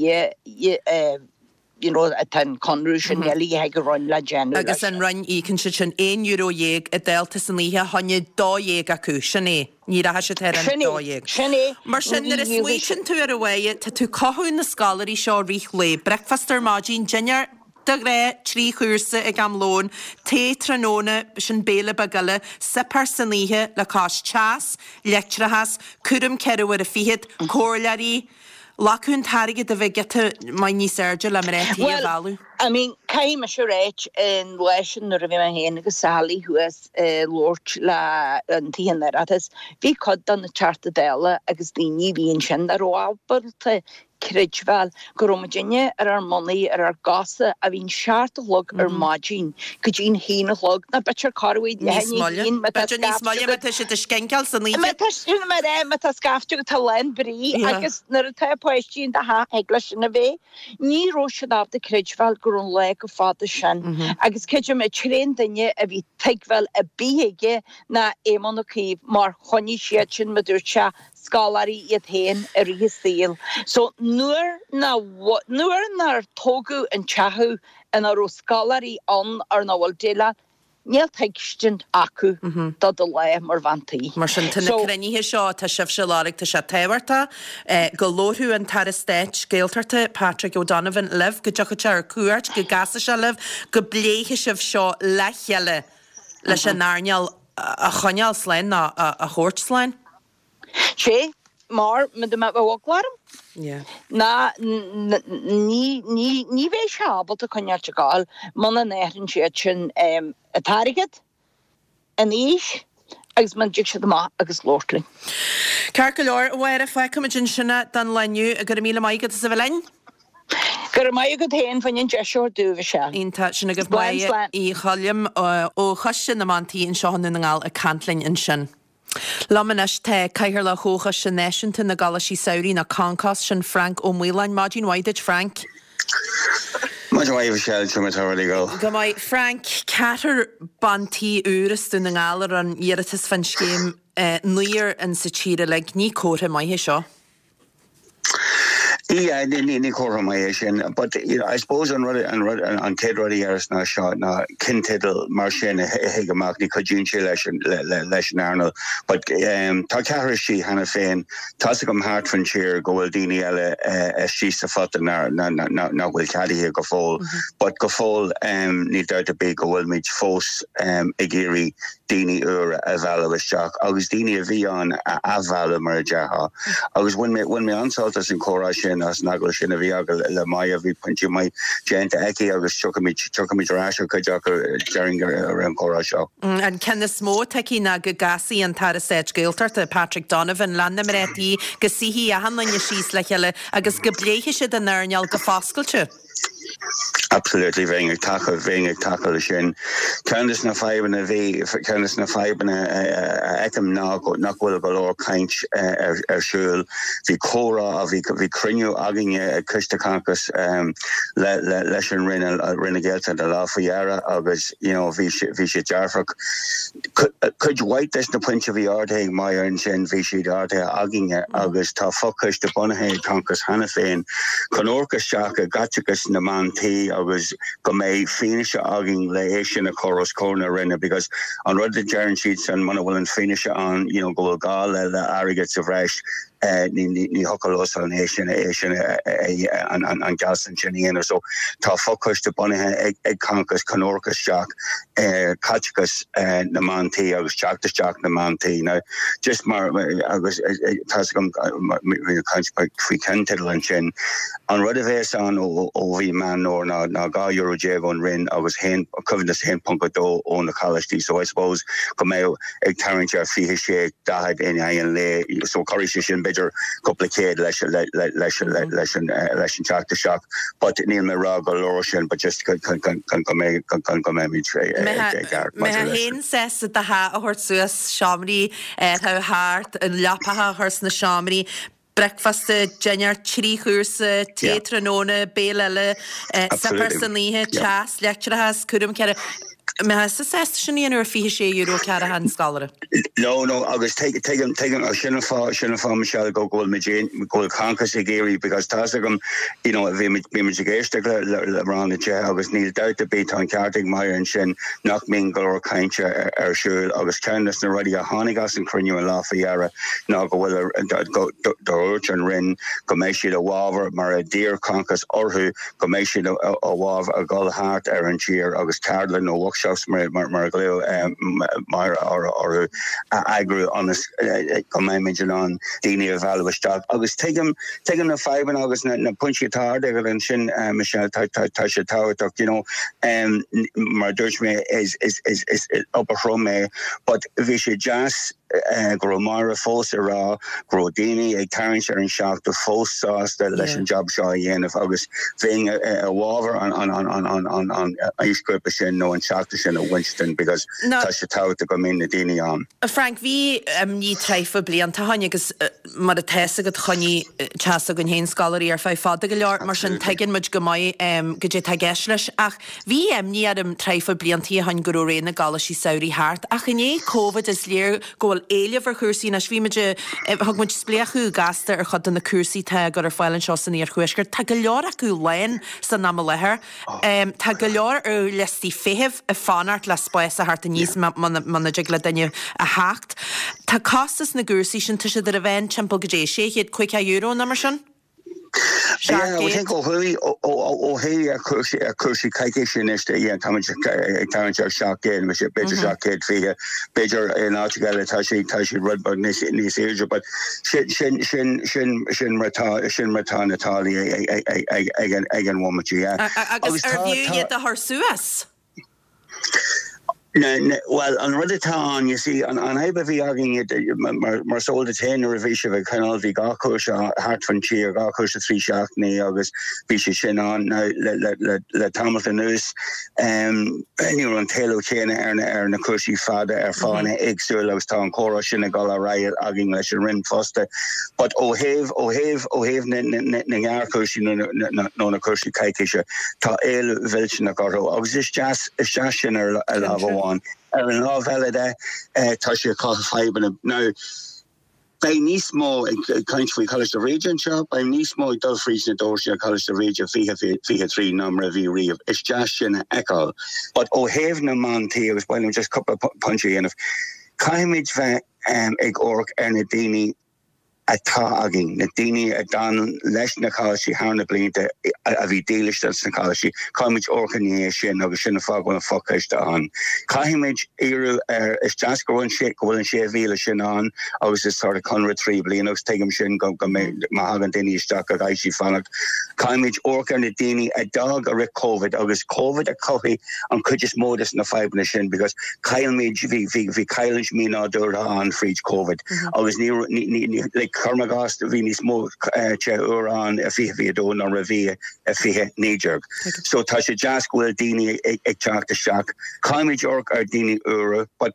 you know, tá an conradh sin eile ag an Roinn le déanamh leis. Agus an Roinn, íocann siad sin €11 an dalta san oíche, fá choinne 12 acu, sin é, ní rachaidh siad thar an Sin é, 12. sin é. Mar sin, nuair a smaoitíonn tú air a Mháire, tá tú cothú na scoláirí seo rith lae, bricfeasta ar maidin, dinnéar de ghnáth, 3 chúrsa ag am lóin, tae tráthnóna, sin béile beag eile, suipéar san oíche le cois teas, leictreachas, cúram ceithre uaire fichead, comhairleoirí, Ghlacfadh an t-airgead a bheith giota maith níos airde le mná tí a Bhuel, mhealladh. I mean, caithfidh mise a ráit, an lá sin nuair a bhí mé féin agus Sally thuas ag labhairt le an Tithe an Oireachtais, bhí cuid de na Teachta Dála agus daoine a bhí ansin nach raibh ábalta creidbheáil go raibh muidinne ar ár mbonnaí, ar ár gcosa, a bhíonn seacht a chlog ar maidin go dtí an haon a chlog, nó b'fhéidir corruair Níos moille. B'fhéidir níos moille má tá siad ag scinceáil san oíche. Má tá sin mar é, má tá scaifte agat tá lán brí agus nuair atá páistí in do theach thig leis sin a bheith. Ní raibh siad ábalta creidbheáil go raibh an lá chomh fada sin agus creidim an t-aon duine a bhí tuigbheáil ar bith aige ná Éamon Ó Cuív mar choinnigh siad sin, mar dúirt sé, scoláirí iad féin i rith a saoil. So nuair nuair nár tógadh an teach ina raibh scoláirí ann ar nach bhfuil déileáil, níl tuigsint acu do do lá mar bhean tí. Mar sin, tá na cruinnithe seo atá sibhse a lorg, tá sé tábhachtach go labharfadh an tAire Stáit Gaeltachta, Patrick O'Donovan, libh, go dtiocfadh sé ar cuairt, go gcasfadh sé libh, go bpléifeadh sibh seo le chéile leis an earnáil a choinneáil slán nó a thabhairt slán. Sé mar ma dá mbeadh eagla orm ná ní ní ní bheidh sé ábalta coinneáilt ag gabháil muna n-athraíonn siad sin an t-airgead, an aois agus muna dtig siad amach agus labhairt linn. Ceart go leor, a Mháire, fágfaimid ansin é don lá inniu. Go raibh míle maith agat as a bheith linn. Go raibh maith agat féin fá choinne an deis a thabhairt domh, a Mhichelle. Iontach. Sin agaibh Slán, Máire slán. Uí Choilm ó Choiste na mBan Tí anseo i nDún na nGall ag caint linn ansin. Liom anois tá Cathaoirleach Chomhchoiste Náisiúnta na gColáistí Samhraidh, nó Concos, sin Frank Ó Maoláin. Maidin mhaith duit, Frank. Maidin mhaith, a Mhichelle, cad é mar atá rudaí ag dul. Go maith. Frank, ceathrar ban tí úr as Dún na nGall a rinne iarratas fán scéim, naonúr in sa tír uilig. Ní comhartha maith é seo. Yeah, ní comhartha maith é sin, but you know, I suppose an rud, an rud, an chéad rud a dhéarfas ná seo, ná cinnteideal mar sin a thig amach, ní chuidíonn sé leis an, leis an earnáil. But um, tá ceathrar istigh cheana féin, tá's agam thart fan tír go bhfuil daoine eile istigh sa phota nach bhfuil ceadaithe go fóill. But go fóill um, níl dabht ar bith go bhfuilimid fós um, ag iarraidh daoine úra a mhealladh isteach agus daoine a bhí ann a athmhealladh, mar a déarfá. Agus bhain mé, bhain mé an-sult as an chomhrá sin, as an agallamh sin a bhí agam le Moya, bhí pointí maith déanta aici agus tiocfaimid, tiocfaimid ar ais ar chuid acu, déarfainn, i rith an chomhrá seo. An ceann is mó atá aici ná go gcasfaidh an tAire Stáit Gaeltachta, Patrick Donovan, le na mná tí, go suífidh achan duine síos le chéile agus go bpléifidh siad an earnáil go foscailte. Absolutely, bheinn ag tacú, bheinn ag tacú leis sin. Ceann de na fadhbanna a bhí, ceann de na fadhbanna a fheicim ná nach bhfuil go leor caint ar ar siúl. Bhí comhrá, bhí bhí cruinniú againne ag Coiste Concos le le leis an Roinn, Roinn na Gaeltachta an lá faoi dheireadh agus you know bhí sé bhí sé dearfach. Cuid mhaith des na pointí a bhí ardaithe ag Moya ansin, bhí siad ardaithe againne agus tá fochoiste bunaithe ag Concos cheana féin chun amharc isteach i gcaiteachas na mban. mbean tí agus go mbeidh fianaise againn le é sin a chur os comhair na Roinne because an rud a deireann siadsan muna bhfuil an fianaise ann you know go bhfuil gá le le airgead sa bhreis ní ní ní thiocfadh leosan é sin é sin an an an gealltanas sin a dhéanamh. So tá fochoiste bunaithe ag ag Concos chun amharc isteach ar caiteachas na mban tí agus teacht isteach na mban tí. Now just mar agus tá's agam bhí caint faoi cheannteideal ansin, an rud a bhéas ann ó mhí Meán Fómhair ná ná 12 euro ón Roinn agus haon coibhneas 1.2 ó na coláistí. So I suppose go mbeadh ag tarraingt ar 26, 40 in aghaidh an lae so cuirfidh sé sin b'fhéidir cúpla céad leis leis leis an leis an teacht isteach but níl mé ag rá go leor sin but just chun chun go mbeidh chun go mbeimid ag ceart maidir leis. Mbeifeá féin sásta do theach a thabhairt suas, seomraí a thart, an leapacha a chur sna seomraí, bricfeasta, dinnéar, trí chúrsa, tae tráthnóna, béile eile, suipéar san oíche, teas, leictreachas, cúram cearr. Mbeifeá sásta sin a dhéanamh ar €26 ceathracha an scoláire? No, no, agus tuigim, tuigim, sin an fáth, sin an fáth, Michelle, go bhfuil muid, go bhfuil Concos ag iarraidh, because tá's agam, you know, bhí muid, bhí muid ag éisteacht le, le, le Rang na Tithe agus níl dabht ar bith, tá an ceart ag Máire ansin nach mbíonn go leor cainte ar, ar siúl agus ceann de na rudaí a tháinig as an chruinniú an lá faoi dheireadh ná go bhfuil dúirt an Roinn go mbeidh siad i bhfabhar, mar a d'iarr Concos orthu, go mbeidh siad i bhfabhar a dhul thart ar an tír agus ceardlann nó workshops mar a ghlaoigh Máire orthu a eagrú ionas go mbeimid in ann daoine a mhealladh isteach. Agus tuigim, tuigim na fadhbanna agus na pointí atá ardaithe agat ansin, Michelle, tá sé tábhachtach, you know, mar a dúirt mé, is obair throm é but bhí sé deas, go raibh Máire fós ag rá go raibh daoine ag tarraingt ar an 70 fós sásta leis an jab seo a dhéanamh agus bheinn i bhfabhar an aoisghrúpa sin nó an 70 sin a bhaint because tá sé tábhachtach go mbíonn na daoine ann. Frank, bhí imní tráth blianta ó shin agus mar atá fhios agat choinnigh teach s'againn féin scoláirí ar feadh fada go leor mar sin tuigeann muid go maith goidé atá i gceist leis ach Bhí imní orm tráth blianta ó shin go raibh ré na gcoláistí samhraidh thart, ach i ndiaidh Covid is léir go bhfuil éileamh ar chúrsaí anois. Bhí muid, thug muid spléachadh gasta ar chuid de na cúrsaí atá á gcur ar fáil anseo san iarthuaisceart. Tá go leor acu lán san am i láthair. Tá go leor ar liostaí feithimh ag fanacht le spás a theacht aníos muna dtig le duine a theacht. Tá costas na gcúrsaí sin, tá siad ar a mheán timpeall goidé, €650 nó mar sin? Yeah, I think ó thuaidh, ó thuaidh ar chúrsaí, ar chúrsaí coicíse anois, yeah, táimid ag tarraingt ar 700, b'fhéidir 720, b'fhéidir in áiteacha eile tá sé, tá siad rud beag níos, níos airde, but sin, sin, sin, sin, sin mar atá, sin mar atá na táillí ag, ag, ag, ag, ag an, ag an bhomaite, yeah. Agus ar bhfiú iad a chur suas? Bhuel, an rud atá ann, you see, an fhadhb a bhí againn, mar is eol duit féin nuair a bhí sibh ag coinneáil, bhí dhá chúrsa thart fan tír, dhá chúrsa 3 seachtainí agus bhí sé sin ann. Now, le tamalt anuas, ní raibh an t-éileamh céanna ar na cúrsaí fada ar fáthanna éagsúla agus tá an comhrá sin ag dul ar aghaidh againn leis an Roinn fosta. But ó thaobh, ó thaobh, ó thaobh na ngearrchúrsaí nó na cúrsaí coicíse, Tá éileamh mhillteanach orthu agus is deas, is deas sin ar lámh amháin. Ar an lámh eile de, tá sé ag cothú fadhbanna. Now, beidh níos mó, ag caint faoi Choláiste Bhríde anseo, beidh níos mó ag dul fríd na doirse ar Choláiste Bhríde 2023 ná mar a bhí riamh. Is deas sin a fheiceáil. But ó thaobh na mban tí, agus ba mhaith liom just cúpla pointe a dhéanamh, caithfimid bheith ag amharc ar na daoine atá againn, na daoine a d'fhan leis na coláistí thar na blianta, a bhí dílis dos na coláistí, caithfimid amharc i ndiaidh sin agus sin an fáth go bhfuil an fochoiste ann. Caithfimid iarraidh ar, is deas go bhfuil an, go bhfuil an 6,000 sin ann agus is sort of conradh 3 bliana agus tuigim sin go, go mbeidh, má thagann daoine isteach go gcaithfidh siad fanacht. Caithfimid amharc ar na daoine a d'fhág i rith Covid agus Covid a chothaigh an chuid is mó des na fadhbanna sin because chaill muid, bhí, bhí, bhí cailliúint mí-nádúrtha ann fríd Covid agus ní, ní, ní, ní, like cuirim i gcás bhí níos mó tithe úra ann i 2022 ná mar a bhí i 2019. So tá sé deas go bhfuil daoine ag, ag teacht isteach. Caithfimid amharc ar daoine úra but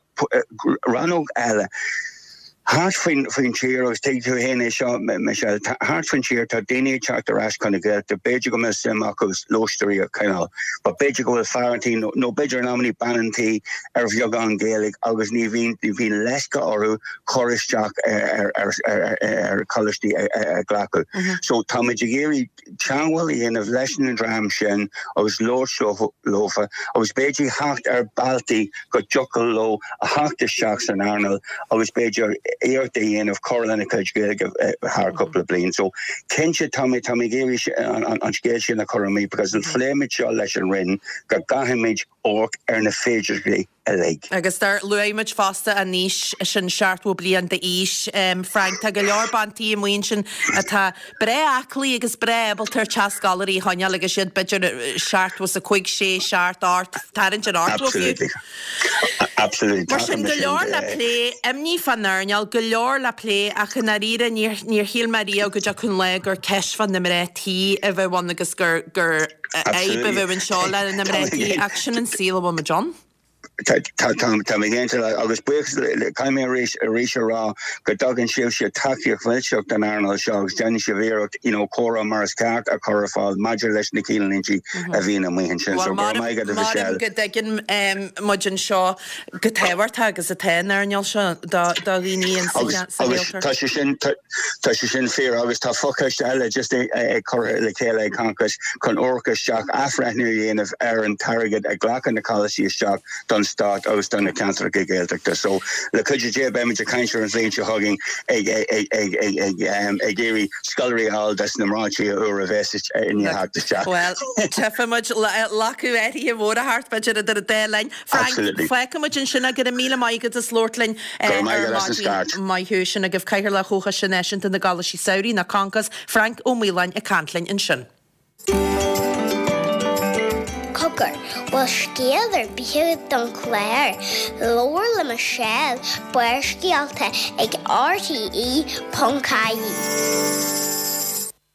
rannóg eile. Thart faoin tír, agus tuigfidh tú féin é seo, Michelle, thart faoin tír tá daoine ag teacht ar ais chun na Gaeltachta, b'fhéidir go mbeadh suim acu lóistéirí a choinneáil, but b'fhéidir go bhfuil fear an tí nó b'fhéidir in amannaí bean an tí ar bheagán Gaeilge agus ní bhíonn, ní bhíonn leisce orthu cur isteach ar choláistí a ghlacadh. So táimid ag iarraidh teagmháil a dhéanamh leis an dream sin agus labhairt leofa agus b'fhéidir theacht ar bealtaí go dtiocfadh leo a theacht isteach san earnáil agus b'fhéidir iarracht a dhéanamh cur lena gcuid Gaeilge thar cúpla bliain. So cinnte tá mé tá mé ag iarraidh an scéal sin a chur amuigh because phléigh muid seo leis an Roinn go gcaithfimid amharc ar na féidearthachtaí uilig. Agus dar luaigh muid fosta an aois sin, 70 bliain d'aois, Frank, tá go leor bean tí amuigh ansin atá breá aclaí agus breá ábalta ar teach scoláirí a choinneáil agus iad b'fhéidir 75, 6, 7, 8, tarraingt ar 80 fiú. Absolutely. Absolutely. Mar sin, go leor le plé, imní fán earnáil, go leor le plé ach i ndáiríre níor, níor shíl mé riamh go dtiocfadh an lá gur ceist fá na mná tí a bheadh ann agus gur, gur, fhadhb a bheadh anseo le na mná tí ach sin an saol a bhfuil muid ann. Tá mé cinnte agus buíochas le caithfidh mé arís arís a rá go dtugann sibhse tacaíocht mhillteach don earnáil seo agus déanann sibh iarracht you know comhrá mar is ceart a chur ar fáil maidir leis na cinnlíntí a bhíonn amuigh ansin. So go raibh maith agat a Mhichelle. Maram go dtuigeann muid anseo chomh tábhachtach agus atá an earnáil seo do dhaoine sa Ghaeltacht. Tá sé sin Tá sé sin fíor agus tá fochoiste eile just curtha le chéile ag Concos chun amharc isteach, athbhreithniú a dhéanamh ar an t-airgead a ghlacann na coláistí isteach don stát agus do na ceantracha Gaeltachta. So, le cuidiú Dé beimid ag caint ar an bhliain seo chugainn ag ag iarraidh scoláirí a fháil dos na mná tí úra a bheas i ndiaidh theacht isteach. Bhuel, tchífidh muid lacadh áirithe mhór a theacht b'fhéidir idir an dá linn. Frank, fágfaidh muid ansin é, go raibh míle maith agat as labhairt linn ar maidin. Maith thú. Sin agaibh Cathaoirleach Chomhchoiste Náisiúnta na gColáistí Samhraidh, nó Concos, Frank Ó Maoláin ag caint linn ansin. Cogar, bhfuil scéal ar bith agat don chlár? Labhair le Michelle, Barrscéalta ag rte.ie.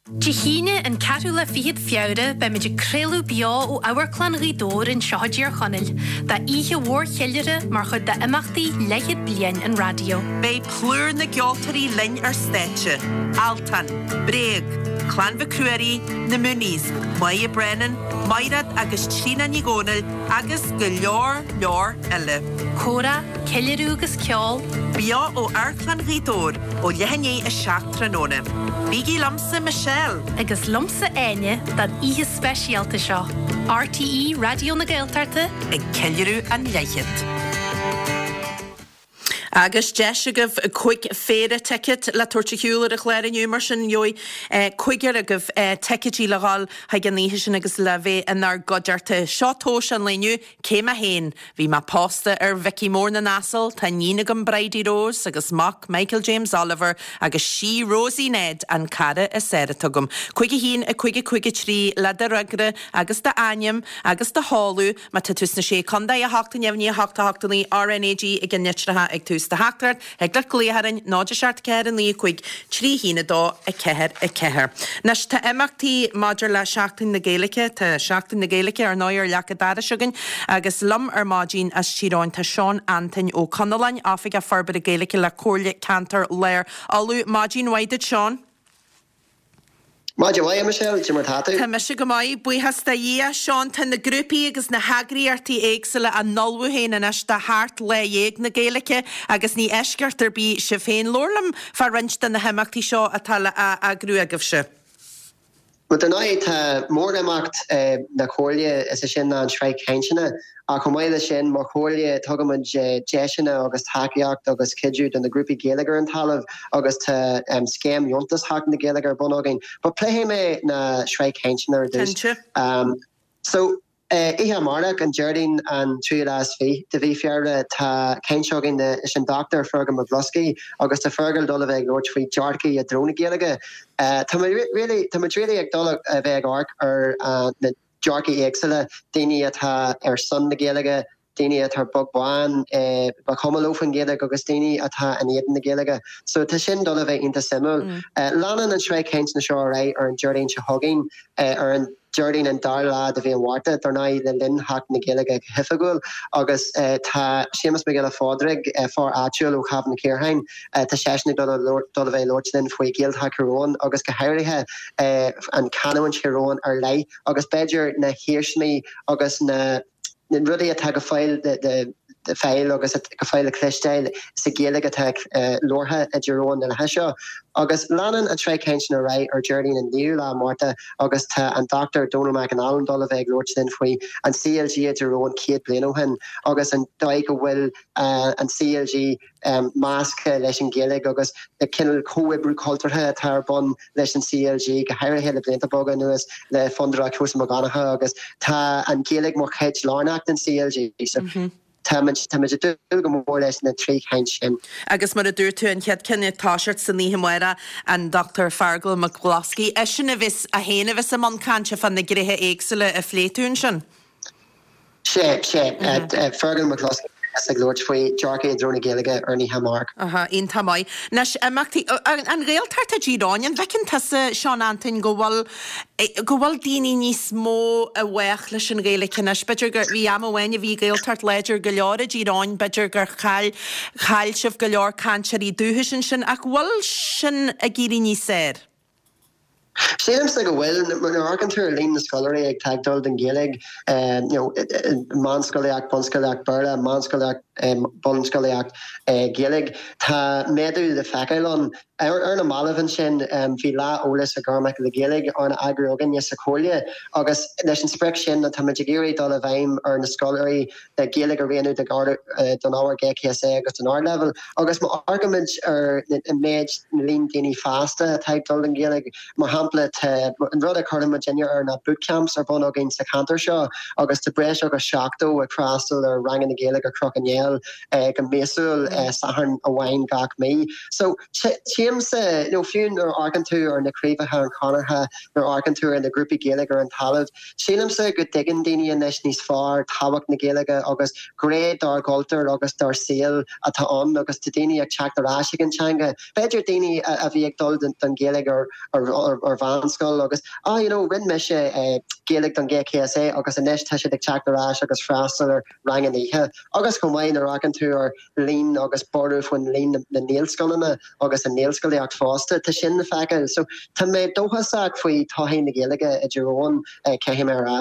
Dé hAoine, an ceathrú lá fichead Feabhra, beimid ag craoladh beo ó Amharclann Ghaoth Dobhair anseo i dTír Chonaill, d'oíche mhór cheiliúrtha mar chuid d'imeachtaí leathchéad bliain an raidió. Beidh plúr na gceoltóirí linn ar stáitse, Altan, Bréag, Clann Mhic Ruairí, Na Mooneys, Moya Brennan, Maighread agus Tríona Ní Dhomhnaill agus go leor leor eile. Comhrá, ceiliúradh agus ceol. Beo ó Amharclann Ghaoth Dobhair ó leath i ndiaidh 7 tráthnóna. Bígí liomsa, Michelle! Agus liomsa, Áine, don oíche speisialta seo. RTÉ Raidió na Gaeltachta. Ag ceiliúradh an leathchéad. Agus deis agaibh 5 phéire ticéad le tabhairt ar shiúl ar an chlár inniu, mar sin gheobhaidh cúigear agaibh ticéidí le dhul chuig an oíche sin agus le bheith inár gcuideachta. Seo tomhas an lae inniu, Cé mé féin? Bhí mé pósta ar Mhicí Mór na nAsal, tá iníon agam Bridie Rose agus mac Michael James Oliver agus sí Rosie Ned an cara is fhearr atá agam. 5 1 5 5 3 le do fhreagra agus do ainm agus do sheoladh má tá tú sna Sé Contae 8 9 8 8 9 RNAG ag na litreacha ag tús do theachtaireacht Thig leat glaoch orainn, 0 7 4 9 5 3 1 2 4 4. Anois, tá imeachtaí maidir le Seachtain na Gaeilge, tá Seachtain na Gaeilge ar ndóigh ar leac an dorais againn agus liom ar maidin as Tír Eoghain tá Seán Antoin Ó Conalláin, Oifigeach Forbartha Gaeilge le Comhairle Ceantair Lár Uladh. Maidin mhaith duit Seán. Maidin mhaith, a Michelle, cad é mar tá tú? Tá mise go maith, buíochas do Dhia. Seán, tá na grúpaí agus na heagraíochtaí éagsúla á n-ullmhú féin anois do theacht Lá Dhéag na Gaeilge agus ní eisceacht ar bith sibh féin. Labhair liom fá roinnt de na himeachtaí seo atá le eagrú agaibhse. Bhuel, dar ndóigh, tá mórimeacht na Comhairle, is é sin ná an tsraith cainteanna. Ach chomh maith leis sin, mar Chomhairle, tugaimid deiseanna agus tacaíocht agus cuidiú do na grúpaí Gaeilge ar an talamh agus tá scéim dheontas Sheachtain na Gaeilge ar bun againn. But pléifidh mé na sraith cainteanna ar dtús. Cinnte. So, oíche amárach, an Déardaoin an tríú lá is fiche de mhí Feabhra, tá caint againn leis an Dr Fergal Mac Bhloscaidh agus tá Fergal dul a bheith ag labhairt faoi dearcaí i dtreo na Gaeilge. Tá muid really, tá muid really ag dul a bheith ag amharc ar na dearcaí éagsúla, daoine atá ar son na Gaeilge, daoine atá beag beann, ba chuma leo faoin Ghaeilge agus daoine atá in éadan na Gaeilge. So tá sin dul a bheith iontach suimiúil. Leanann an tsraith cainteanna seo ar aghaidh ar an Déardaoin seo chugainn ar an. Déardaoin an dara lá de mhí an Mhárta, dar ndóigh le linn Sheachtain na Gaeilge go hoifigiúil, agus tá Séamus Mac Giolla Phádraig, fear áitiúil ó Chavan Chaorthainn, tá seisean ag dul a dul a bheith ag labhairt linn faoi Ghaeltacht Thír Eoghain agus go háirithe an chanúint Thír Eoghain ar leith agus b'fhéidir na hiarsmaí agus na rudaí atá go fóill le fáil agus go fóill le cloisteáil sa Ghaeilge atá labhartha i dTír Eoghain na laetha seo. Agus leanann an tsraith cainteanna ar aghaidh ar Déardaoin an 9ú lá Márta agus tá an Dr Dónal McAnallen dul a bheith ag labhairt linn faoi an CLG i dTír Eoghain 100 bliain ó shin agus an dóigh go bhfuil an CLG measctha leis an Ghaeilge agus na cineál comhoibriú cultúrtha atá ar bun leis an CLG, go háirithe le blianta beaga anuas le Fondúireacht Sheosamh Mac Donncha agus tá an Ghaeilge mar chuid lárnach den CLG. So táimid táimid ag dúil go mór leis na trí chaint sin. Agus mar a dúirt tú, an chéad ceann ag toiseacht san oíche amárach, an Dr Feargal Mac Bhloscaidh, eisean a bheas, é féin a bheas i mbun cainte fá na gnéithe éagsúla a phléigh tú ansin. Sea, sea. Feargal Mac Bhloscaidh a bheas ag labhairt faoi dearcadh i dtreo na Gaeilge ar an oíche amárach. Aha, iontach maith. Anois, imeachtaí, an Ghaeltacht i dTír Eoghain, an bhfeiceann tusa, Seán Antoin, go bhfuil, go bhfuil daoine níos mó i bhfách leis an Ghaeilge anois? B'fhéidir gur, bhí am amháin a bhí Gaeltacht láidir go leor i dTír Eoghain, b'fhéidir gur chaill, chaill sibh go leor cainteoirí dúchais ansin, ach bhfuil sin ag éirí níos fearr? Sílimse go bhfuil. Nuair a amharcann tú ar líon na scoláirí atá ag dul don Ghaeilge, you know, meánscolaíocht, bunscolaíocht Béarla, meánscolaíocht, bunscolaíocht Gaeilge, tá méadú le feiceáil ann. Ar na mallaibh ansin, bhí Lá Eolais do Ghairmeacha na Gaeilge arna eagrú againne sa Chomhairle agus leis an sprioc sin táimid ag iarraidh dul i bhfeidhm ar na scoláirí le Gaeilge a roghnú don ábhar GCSE agus don Ardleibhéal. Agus má amharcaimid ar an méid, na líon daoine fásta atá ag dul don Ghaeilge, mar shampla, tá an rud a chuireann muidinne air ná bootcamps ar bun againn sa cheantar seo agus tá breis agus 70 ag freastal ar ranganna Gaeilge ar Chnoc an Néill go míosúil, Satharn amháin gach mí. So, tchímse, nó fiú nuair a amharcann tú ar na craobhacha an Chonartha, nuair a amharcann tú ar na grúpaí Gaeilge ar an talamh, Sílimse go dtuigeann daoine anois níos fearr tábhacht na Gaeilge agus gné dár gcultúr agus dár saol atá ann agus tá daoine ag teacht ar ais ag an teanga. B'fhéidir daoine a bhí ag dul don Ghaeilge ar ar mheánscoil agus ah you know rinne mise Gaeilge don GCSE agus anois tá siad ag teacht ar ais agus freastal ar ranganna oíche. Agus chomh maith nuair a amharcann tú ar líon agus borradh faoin líon na nGaelscoileanna agus an nGaelscolaíocht fosta, tá sin le feiceáil. So tá mé dóchasach faoi todhchaí na Gaeilge i dTír Eoghain, caithfidh mé a rá.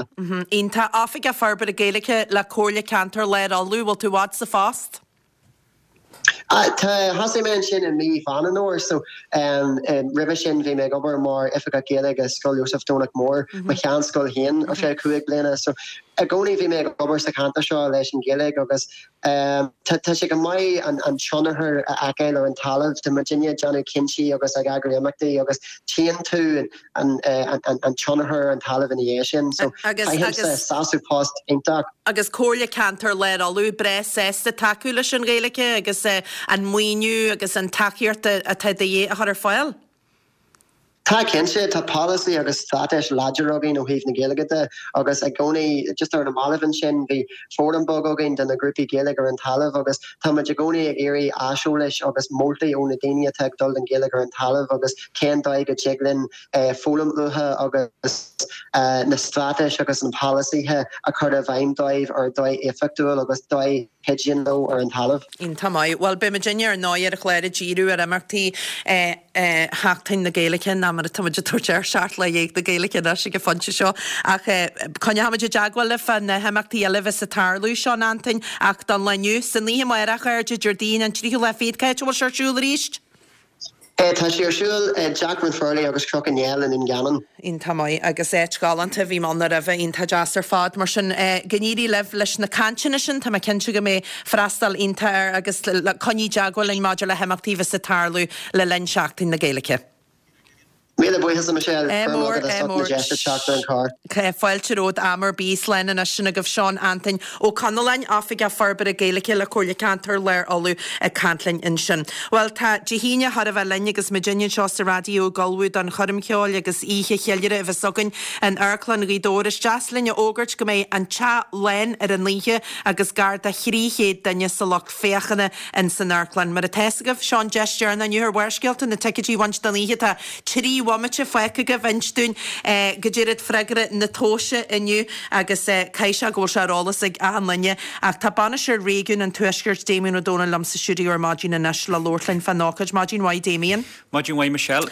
Iontach. Oifigeach Forbartha Gaeilge le Comhairle Ceantair Lár Uladh, bhfuil tú i bhfad sa phost? Tá, thosaigh mé ansin i mí Mheán an Fhómhair so roimhe sin bhí mé ag obair mar Oifigeach Gaeilge i Scoil Iósaef Domhnach Mór, mo sheanscoil féin ar feadh 5 bliana. So i gcónaí bhí mé ag obair sa cheantar seo leis an Ghaeilge agus tá sé go maith an tionchar a fheiceáil ar an talamh. Tá muidinne ag déanamh cinntí agus ag eagrú imeachtaí agus tchíonn tú an tionchar ar an talamh ina dhiaidh sin. So faighimse sásamh post iontach. Agus Comhairle Ceantair Lár Uladh breá sásta tacú leis an Ghaeilge agus an maoiniú agus an tacaíocht atá de dhíth a chur ar fáil. Tá cinnte, tá polasaí agus straitéis láidir againn ó thaobh na Gaeilge de agus i gcónaí, just ar na mallaibh ansin, bhí fóram beag againn de na grúpaí Gaeilge ar an talamh agus tá muid i gcónaí ag iarraidh aiseolais agus moltaí ó na daoine atá ag dul don Ghaeilge ar an talamh agus cén dóigh go dtig linn foghlaim uathu agus na straitéis agus na polasaithe a chur i bhfeidhm dóibh ar dóigh éifeachtúil agus dóigh chuidíonn leo ar an talamh. Iontach maith. Bhuel, beidh muidinne ar ndóigh ar an chlár ag díriú ar imeachtaí Sheachtain na Gaeilge, ná mar atá muid ag tabhairt air, 17 lá na Gaeilge anois ag an phointe seo. Ach coinneoidh muid i dteagmháil libh fá na himeachtaí eile a bheas ag tarlú, Seán Antoin, ach don lá inniu, san oíche amárach, a chairde, Déardaoin an tríú lá fichead, cá háit a bhfuil sé ar siúl arís? Tá sé ar siúl i dTeach Ranfurly agus Cnoc an Néill i nDún Geanainn. Iontach maith agus áit ghalánta, bhí mé ann roimhe, iontach deas ar fad. Mar sin, go n-éirí libh leis na cainteanna sin, tá mé cinnte go mbeidh freastal iontach air agus coinnigh i dteagmháil linn maidir le himeachtaí a bheas ag tarlú le linn Seachtain na Gaeilge. Míle buíochas a Michelle, Ádh mór, ádh mór. Deis a teacht ar an charr. Fáilte romhat am ar bith. Slán anois sin agaibh Seán Antoin Ó Conalláin, Oifigeach Forbartha Gaeilge le Comhairle Ceantair Lár Uladh ag caint linn ansin. Bhuel tá Dé hAoine chóir a bheith linn agus muidinne anseo sa raidió ag ullmhú don choirm cheoil agus oíche cheiliúrtha a bheas againn in Amharclann Ghaoth Dobhair. Is deas linn a fhógairt go mbeidh an teach lán ar an oíche agus gar do 300 duine sa lucht féachana in san amharclann. Mar atá fhios agaibh, seo an deis deireanach inniu ar Bharrscéalta na ticéidí a bhaint don oíche. Tá 3. bhomaite fágtha agaibh inis dúinn goidé iad freagra na tomhaise inniu agus caithfidh sé go bhfuil sé ar eolas ag achan duine ach tá Bainisteoir Réigiún an Tuaiscirt Damien Ó Dónaill liom sa stiúideo ar maidin anois le labhairt linn fán ócáid. Maidin mhaith Damien. Maidin mhaith Michelle.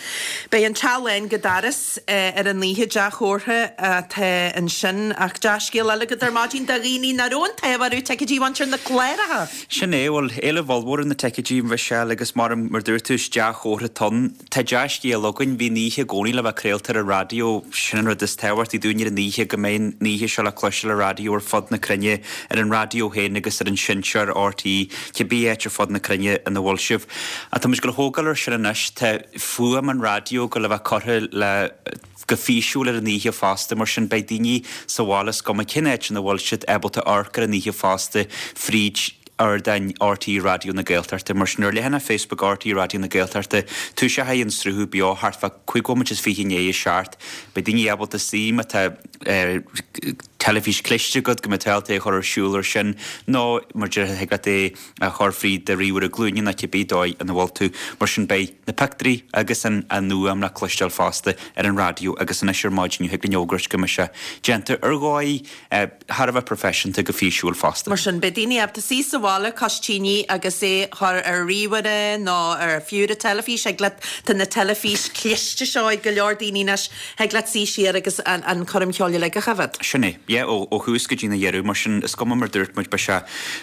Beidh an teach lán go doras ar an oíche, dea-chomhartha atá ansin ach dea-scéal eile agat ar maidin do dhaoine nach raibh an t-ádh orthu ticéidí a bhaint ar na cláracha. Sin é, bhuel, éileamh ollmhór ar na ticéidí, Michelle, agus mar mar dúirt tú, is dea-chomhartha atá ann. Tá dea-scéal againn, bhí an oíche i gcónaí le bheith craolta ar an raidió, sin an rud is tábhachtaí dúinn ar an oíche, go mbeidh an oíche seo le cloisteáil ar raidió ar fud na cruinne, ar an raidió féin agus ar an seinnteoir RTÉ, cibé áit ar fud na cruinne ina bhfuil sibh. Ach tá muid ag dul a thógáil ar sin anois, tá fuaim an raidió ag dul a bheith curtha le go físiúil ar an oíche fosta, mar sin beidh daoine sa bhaile is cuma cén áit ina bhfuil siad ábalta amharc ar an oíche fosta fríd ardáin RTÉ Raidió na Gaeltachta. Mar sin ar leathanach Facebook RTÉ Raidió na Gaeltachta toiseochaidh an sruthú beo thart fá 25 bhomaite i ndiaidh a 7. Beidh daoine ábalta suí má tá teilifís cliste agat go mbeidh tú ábalta é a chur ar siúl ar sin nó mar déarfá thig leat é a chur fríd do ríomhaire glúine nó cibé dóigh ina bhfuil tú. Mar sin beidh na pictiúirí agus an fhuaim le cloisteáil fosta ar an raidió agus anois ar maidin thig linn fhógairt go mbeidh sé déanta ar dhóigh thar a bheith proifisiúnta go físiúil fosta. Mar sin beidh daoine ábalta suí sa bhaile cois tine agus é a chur ar ríomhaire nó ar fiú ar an teilifís. Thig leat, tá na teilifís cliste seo ag go leor daoine anois, Thig leat suí siar agus an choirm cheoil uilig a choimhéad. Sin é. Yeah, ó thús go dtí na dheireadh. Mar sin, is cuma mar dúirt muid, beidh sé,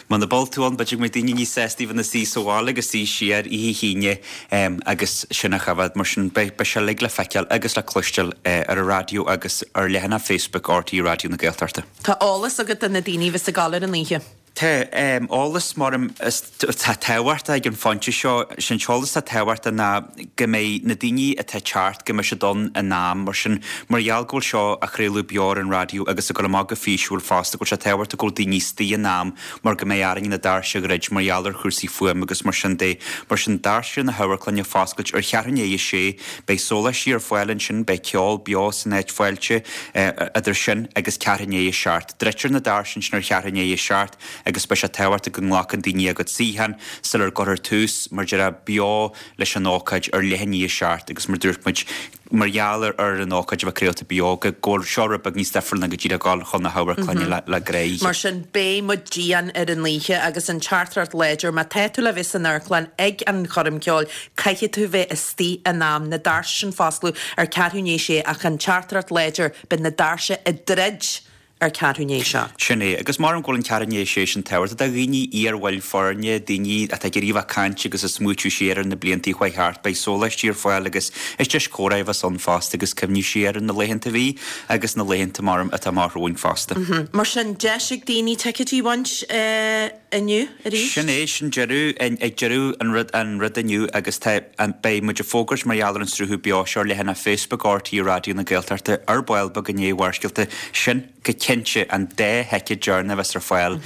muna bhfuil tú ann, b'fhéidir go mbeidh daoine níos sásta bheith ina suí sa bhaile agus suí siar oíche hAoine agus sin a choimhéad. Mar sin, beidh, beidh sé uilig le feiceáil agus le cloisteáil ar an raidió agus ar leathanach Facebook RTÉ Raidió na Gaeltachta. Tá eolas agat do na daoine a bheas ag gabháil ar an oíche. Tá eolas mar atá tábhachtach ag an phointe seo. Sé an t-eolas atá tábhachtach ná go mbeidh na daoine atá ag teacht, go mbeidh siad ann in am. Mar sin, mar gheall go bhfuil seo á chraoladh beo ar an raidió agus ag dul amach go físiúil fosta, go bhfuil sé tábhachtach go bhfuil daoine istigh in am mar go mbeidh orainn na doirse a dhruid mar gheall ar chúrsaí fuaime agus mar sin de. Mar sin, doirse na hamharclainne ag foscailt ar cheathrú i ndiaidh a sé. Beidh sóláistí ar fáil ansin, beidh ceol beo san áit fáilte idir sin agus ceathrú i ndiaidh a seacht. Druidtear na doirse ansin ar cheathrú i ndiaidh a 7 agus beidh sé tábhachtach go nglacann daoine a gcuid suíochán sular gcuirfear tús, mar déarfá, beo leis an ócáid ar leath i ndiaidh a 7 agus mar dúirt muid, mar gheall ar an ócáid a bheith craolta beo, go bhfuil seo rud beag níos difriúil ná go díreach dul chun na hamharclainne le gnáthoíche. Mar sin, beidh muid dian ar an oíche agus an teachtaireacht láidir, má tá tú le bheith san amharclann ag an choirm ceoil, caithfidh tú bheith istigh in am, na doirse sin foscladh ar ceathrú i ndiaidh a sé ach an teachtaireacht láidir, Beidh na doirse ag druid ar ceathrú i ndiaidh a 7. Sin é. Agus maram go bhfuil an ceathrú i ndiaidh a sé sin tábhachtach do dhaoine, iar-bhaill foirne, daoine atá ag iarraidh a bheith ag caint agus ag smaoitiú siar ar na blianta a chuaigh thart. Beidh sóláistí ar fáil agus is deis comhrá a bheas ann fosta agus cuimhniú siar ar na laethanta a bhí agus na laethanta, maram, atá amach romhainn fosta. Mar sin, deis ag daoine ticéidí a bhaint. inniu arís. Sin é, sin deireadh, ag deireadh an rud, an rud inniu agus tá, an, beidh muid ag fógairt mar gheall ar an sruthú beo seo ar leathanach Facebook RTÉ Raidió na Gaeltachta ar ball beag i ndiaidh Bharrscéalta. Sin, go cinnte, an dá thicéad deireanach a bheas ar fáil.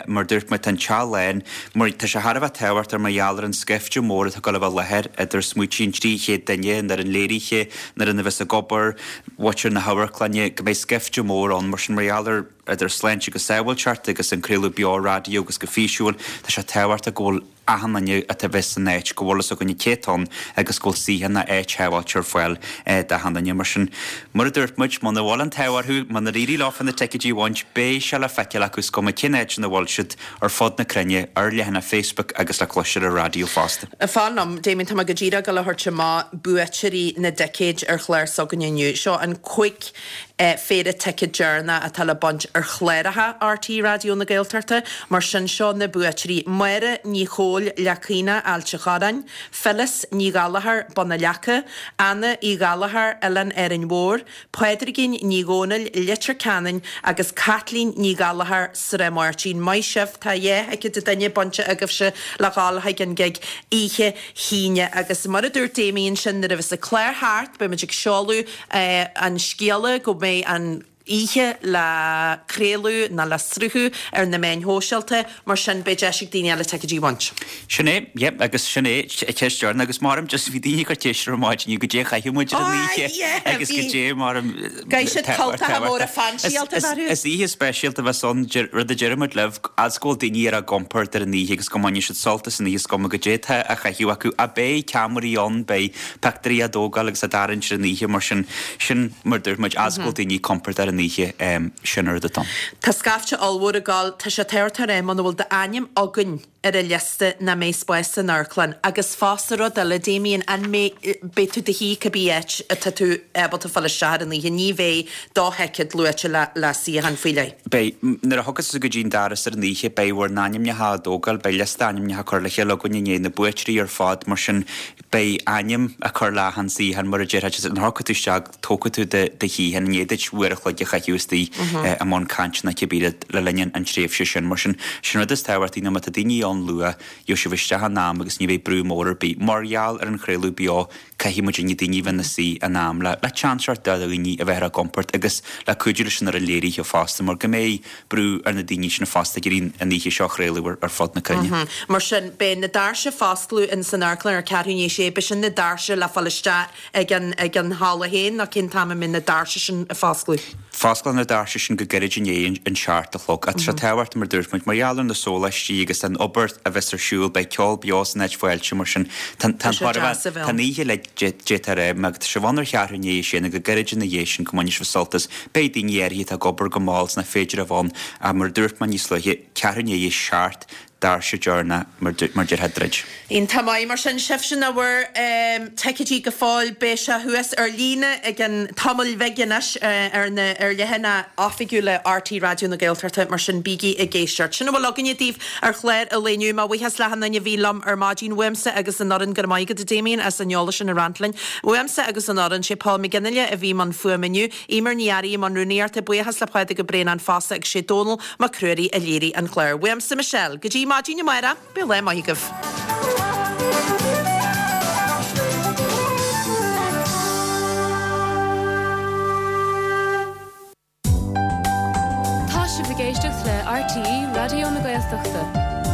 Mar dúirt muid, tá an teach lán, mar tá sé thar a bheith tábhachtach mar gheall ar an scaifte mór atá ag dul a bheith i láthair, idir smaoití an 300 duine, an fhoireann léirithe, an fhoireann a bheas ag obair, mhuintir na hamharclainne, go mbeidh scaifte mór ann, mar sin mar gheall ar. idir sláinte agus sábháilteacht agus an craoladh beo raidió agus go físiúil, tá sé tábhachtach go bhfuil achan duine atá a bheith san áit, go bhfuil fhios againne cé atá ann agus go bhfuil suíochán nó áit shábháilte ar fáil d'achan duine. Mar sin, mar a dúirt muid, muna bhfuil an t-ádh orthu, munar éirigh leofa na ticéidí a bhaint, beidh sé le feiceáil acu is cuma cén áit ina bhfuil siad ar fud na cruinne, ar leathanach Facebook agus le cloisteáil ar an raidió fosta. Fan liom, Damien, tá mé go díreach ag dul a thabhairt amach buaiteoirí na dticéid ar chlár s'againne inniu. Seo an 5 phéire ticéad deireanach atá le baint ar chláracha RTÉ Raidió na Gaeltachta. Mar sin, seo na buaiteoirí, Máire Ní Chomhaill, Leac Caonach, Ailt a' Chorráin, Phyllis Ní Ghallchóir, Bun na Leaca, Anna Uí Ghallchóir, Oileán Árainn Mhór, Pádraigín Ní Dhomhnaill, Leitir Ceanainn agus Caitlín Ní Ghallchóir, Srath Máirtín. Maith sibh, tá dhá thicéad an duine bainte agaibhse le dhul chuig an gig oíche hAoine agus mar a dúirt Damien sin nuair a bheas an clár thart beidh muid ag seoladh an scéala go mbeidh an. oíche le craoladh ná le sruthú ar na meáin shóisialta, mar sin beidh deis ag daoine eile ticéidí a bhaint. Sin é, yep, agus sin é ceist deireanach agus maram just bhí daoine ag cur ceist ar maidin inniu goidé a chaithfidh muid ar an oíche agus goidé maram Caithfidh siad cultacha móra fainsíálta a bheith orthu. Is oíche speisialta a bheas ann, rud a deir muid libh, fhad 's go bhfuil daoine ar a gcompord ar an oíche agus go mbainfidh siad sult as an oíche is cuma goidé atá á chaitheamh acu. Ach beidh ceamaraí ann, beidh pictiúirí á dtógáil agus á dtarraingt ar an oíche mar sin, sin mar dúirt muid, fhad 's go bhfuil daoine compordach ar an oíche, sin an rud atá ann. Tá scaifte ollmhór ag gabháil, tá sé tábhachtach a rá muna bhfuil d'ainm againn ar an liosta nach mbeidh spás san amharclann agus fosta rud eile Damien, an mbeidh, beidh tú i do shuí cibé áit atá tú ábalta fáil isteach ar an oíche, ní bheidh do thicéad luaite le le suíochán faoi leith. Beidh, nuair a thiocfas tú go dtí an doras ar an oíche beidh bhur n-ainmneacha á dtógáil, beidh liosta ainmneacha curtha le chéile againn i ndiaidh na buaiteoirí ar fad mar sin Beidh ainm á cur le achan suíochán mar a déarfá, nuair a thiocfaidh tú isteach tógfaidh tú do shuíochán i ndiaidh duit uair a chloig a chaitheamh istigh i mbun cainte nó cibé rud le linn an tréimhse sin. Mar sin, sin rud is tábhachtaí ná má tá daoine ann luath, gheobhaidh sibh isteach in am agus ní bheidh brú mór ar bith. Mar gheall ar an chraoladh beo, caithfidh muidinne daoine a bheith ina suí in am le le seans a thabhairt do dhaoine a bheith ar a gcompord agus le cuidiú leis an fhoireann léirithe fosta mar go mbeidh brú ar na daoine sin fosta ag iarraidh an oíche seo a chraoladh ar fud na cruinne. Mar sin, beidh na doirse ag foscladh in san amharclann ar ceathrú i ndiaidh a sé, beidh sin na doirse le fáil isteach ag an ag an halla féin nó cén t-am a mbeidh na doirse sin ag foscladh? Fosclóidh na doirse sin go gairid i ndiaidh an seacht a chlog. Tá sé tábhachtach mar dúirt muid, mar gheall ar na sóláistí agus an obair a bheas ar siúl, beidh ceol beo san áit fáilte mar sin tá an tá an oíche le d'fhéadfá a rá, má tá sibh ann ar cheathrú i ndiaidh a sé nó go gairid ina dhiaidh sin go mbainfidh sibh sult as. Beidh daoine áirithe atá ag obair go mall is nach féidir a bheith ann ach mar a dúirt mé níos luaithe, ceathrú i ndiaidh a seacht, doirse deireanach mar déarfá druid. Iontach maith mar sin, sibhse nach bhfuair ticéidí go fóill, beidh sé thuas ar líne i gcionn tamaill bhig anois ar na ar leathanaigh oifigiúla RTÉ Raidió na Gaeltachta, mar sin bígí ag éisteacht. Sin a bhfuil againne daoibh ar chlár an lae inniu. Mo bhuíochas le achan duine a bhí liom ar maidin, uaimse agus an fhoireann, go raibh maith agat a Damien as an eolas sin a roinnt linn. Uaimse agus an fhoireann, sé Paul McGinley a bhí i mbun fuaime inniu, Eimear Ní Fhearraigh i mbun rúnaíochta, buíochas le Pádraig Ó Braonáin fosta agus sé Dónall Mac Ruairí a léirigh an clár. Uaimse Michelle, go dtí maidin amárach, bíodh lá maith agaibh. Tá sibh ag éisteacht le RTÉ Raidió na Gaeltachta.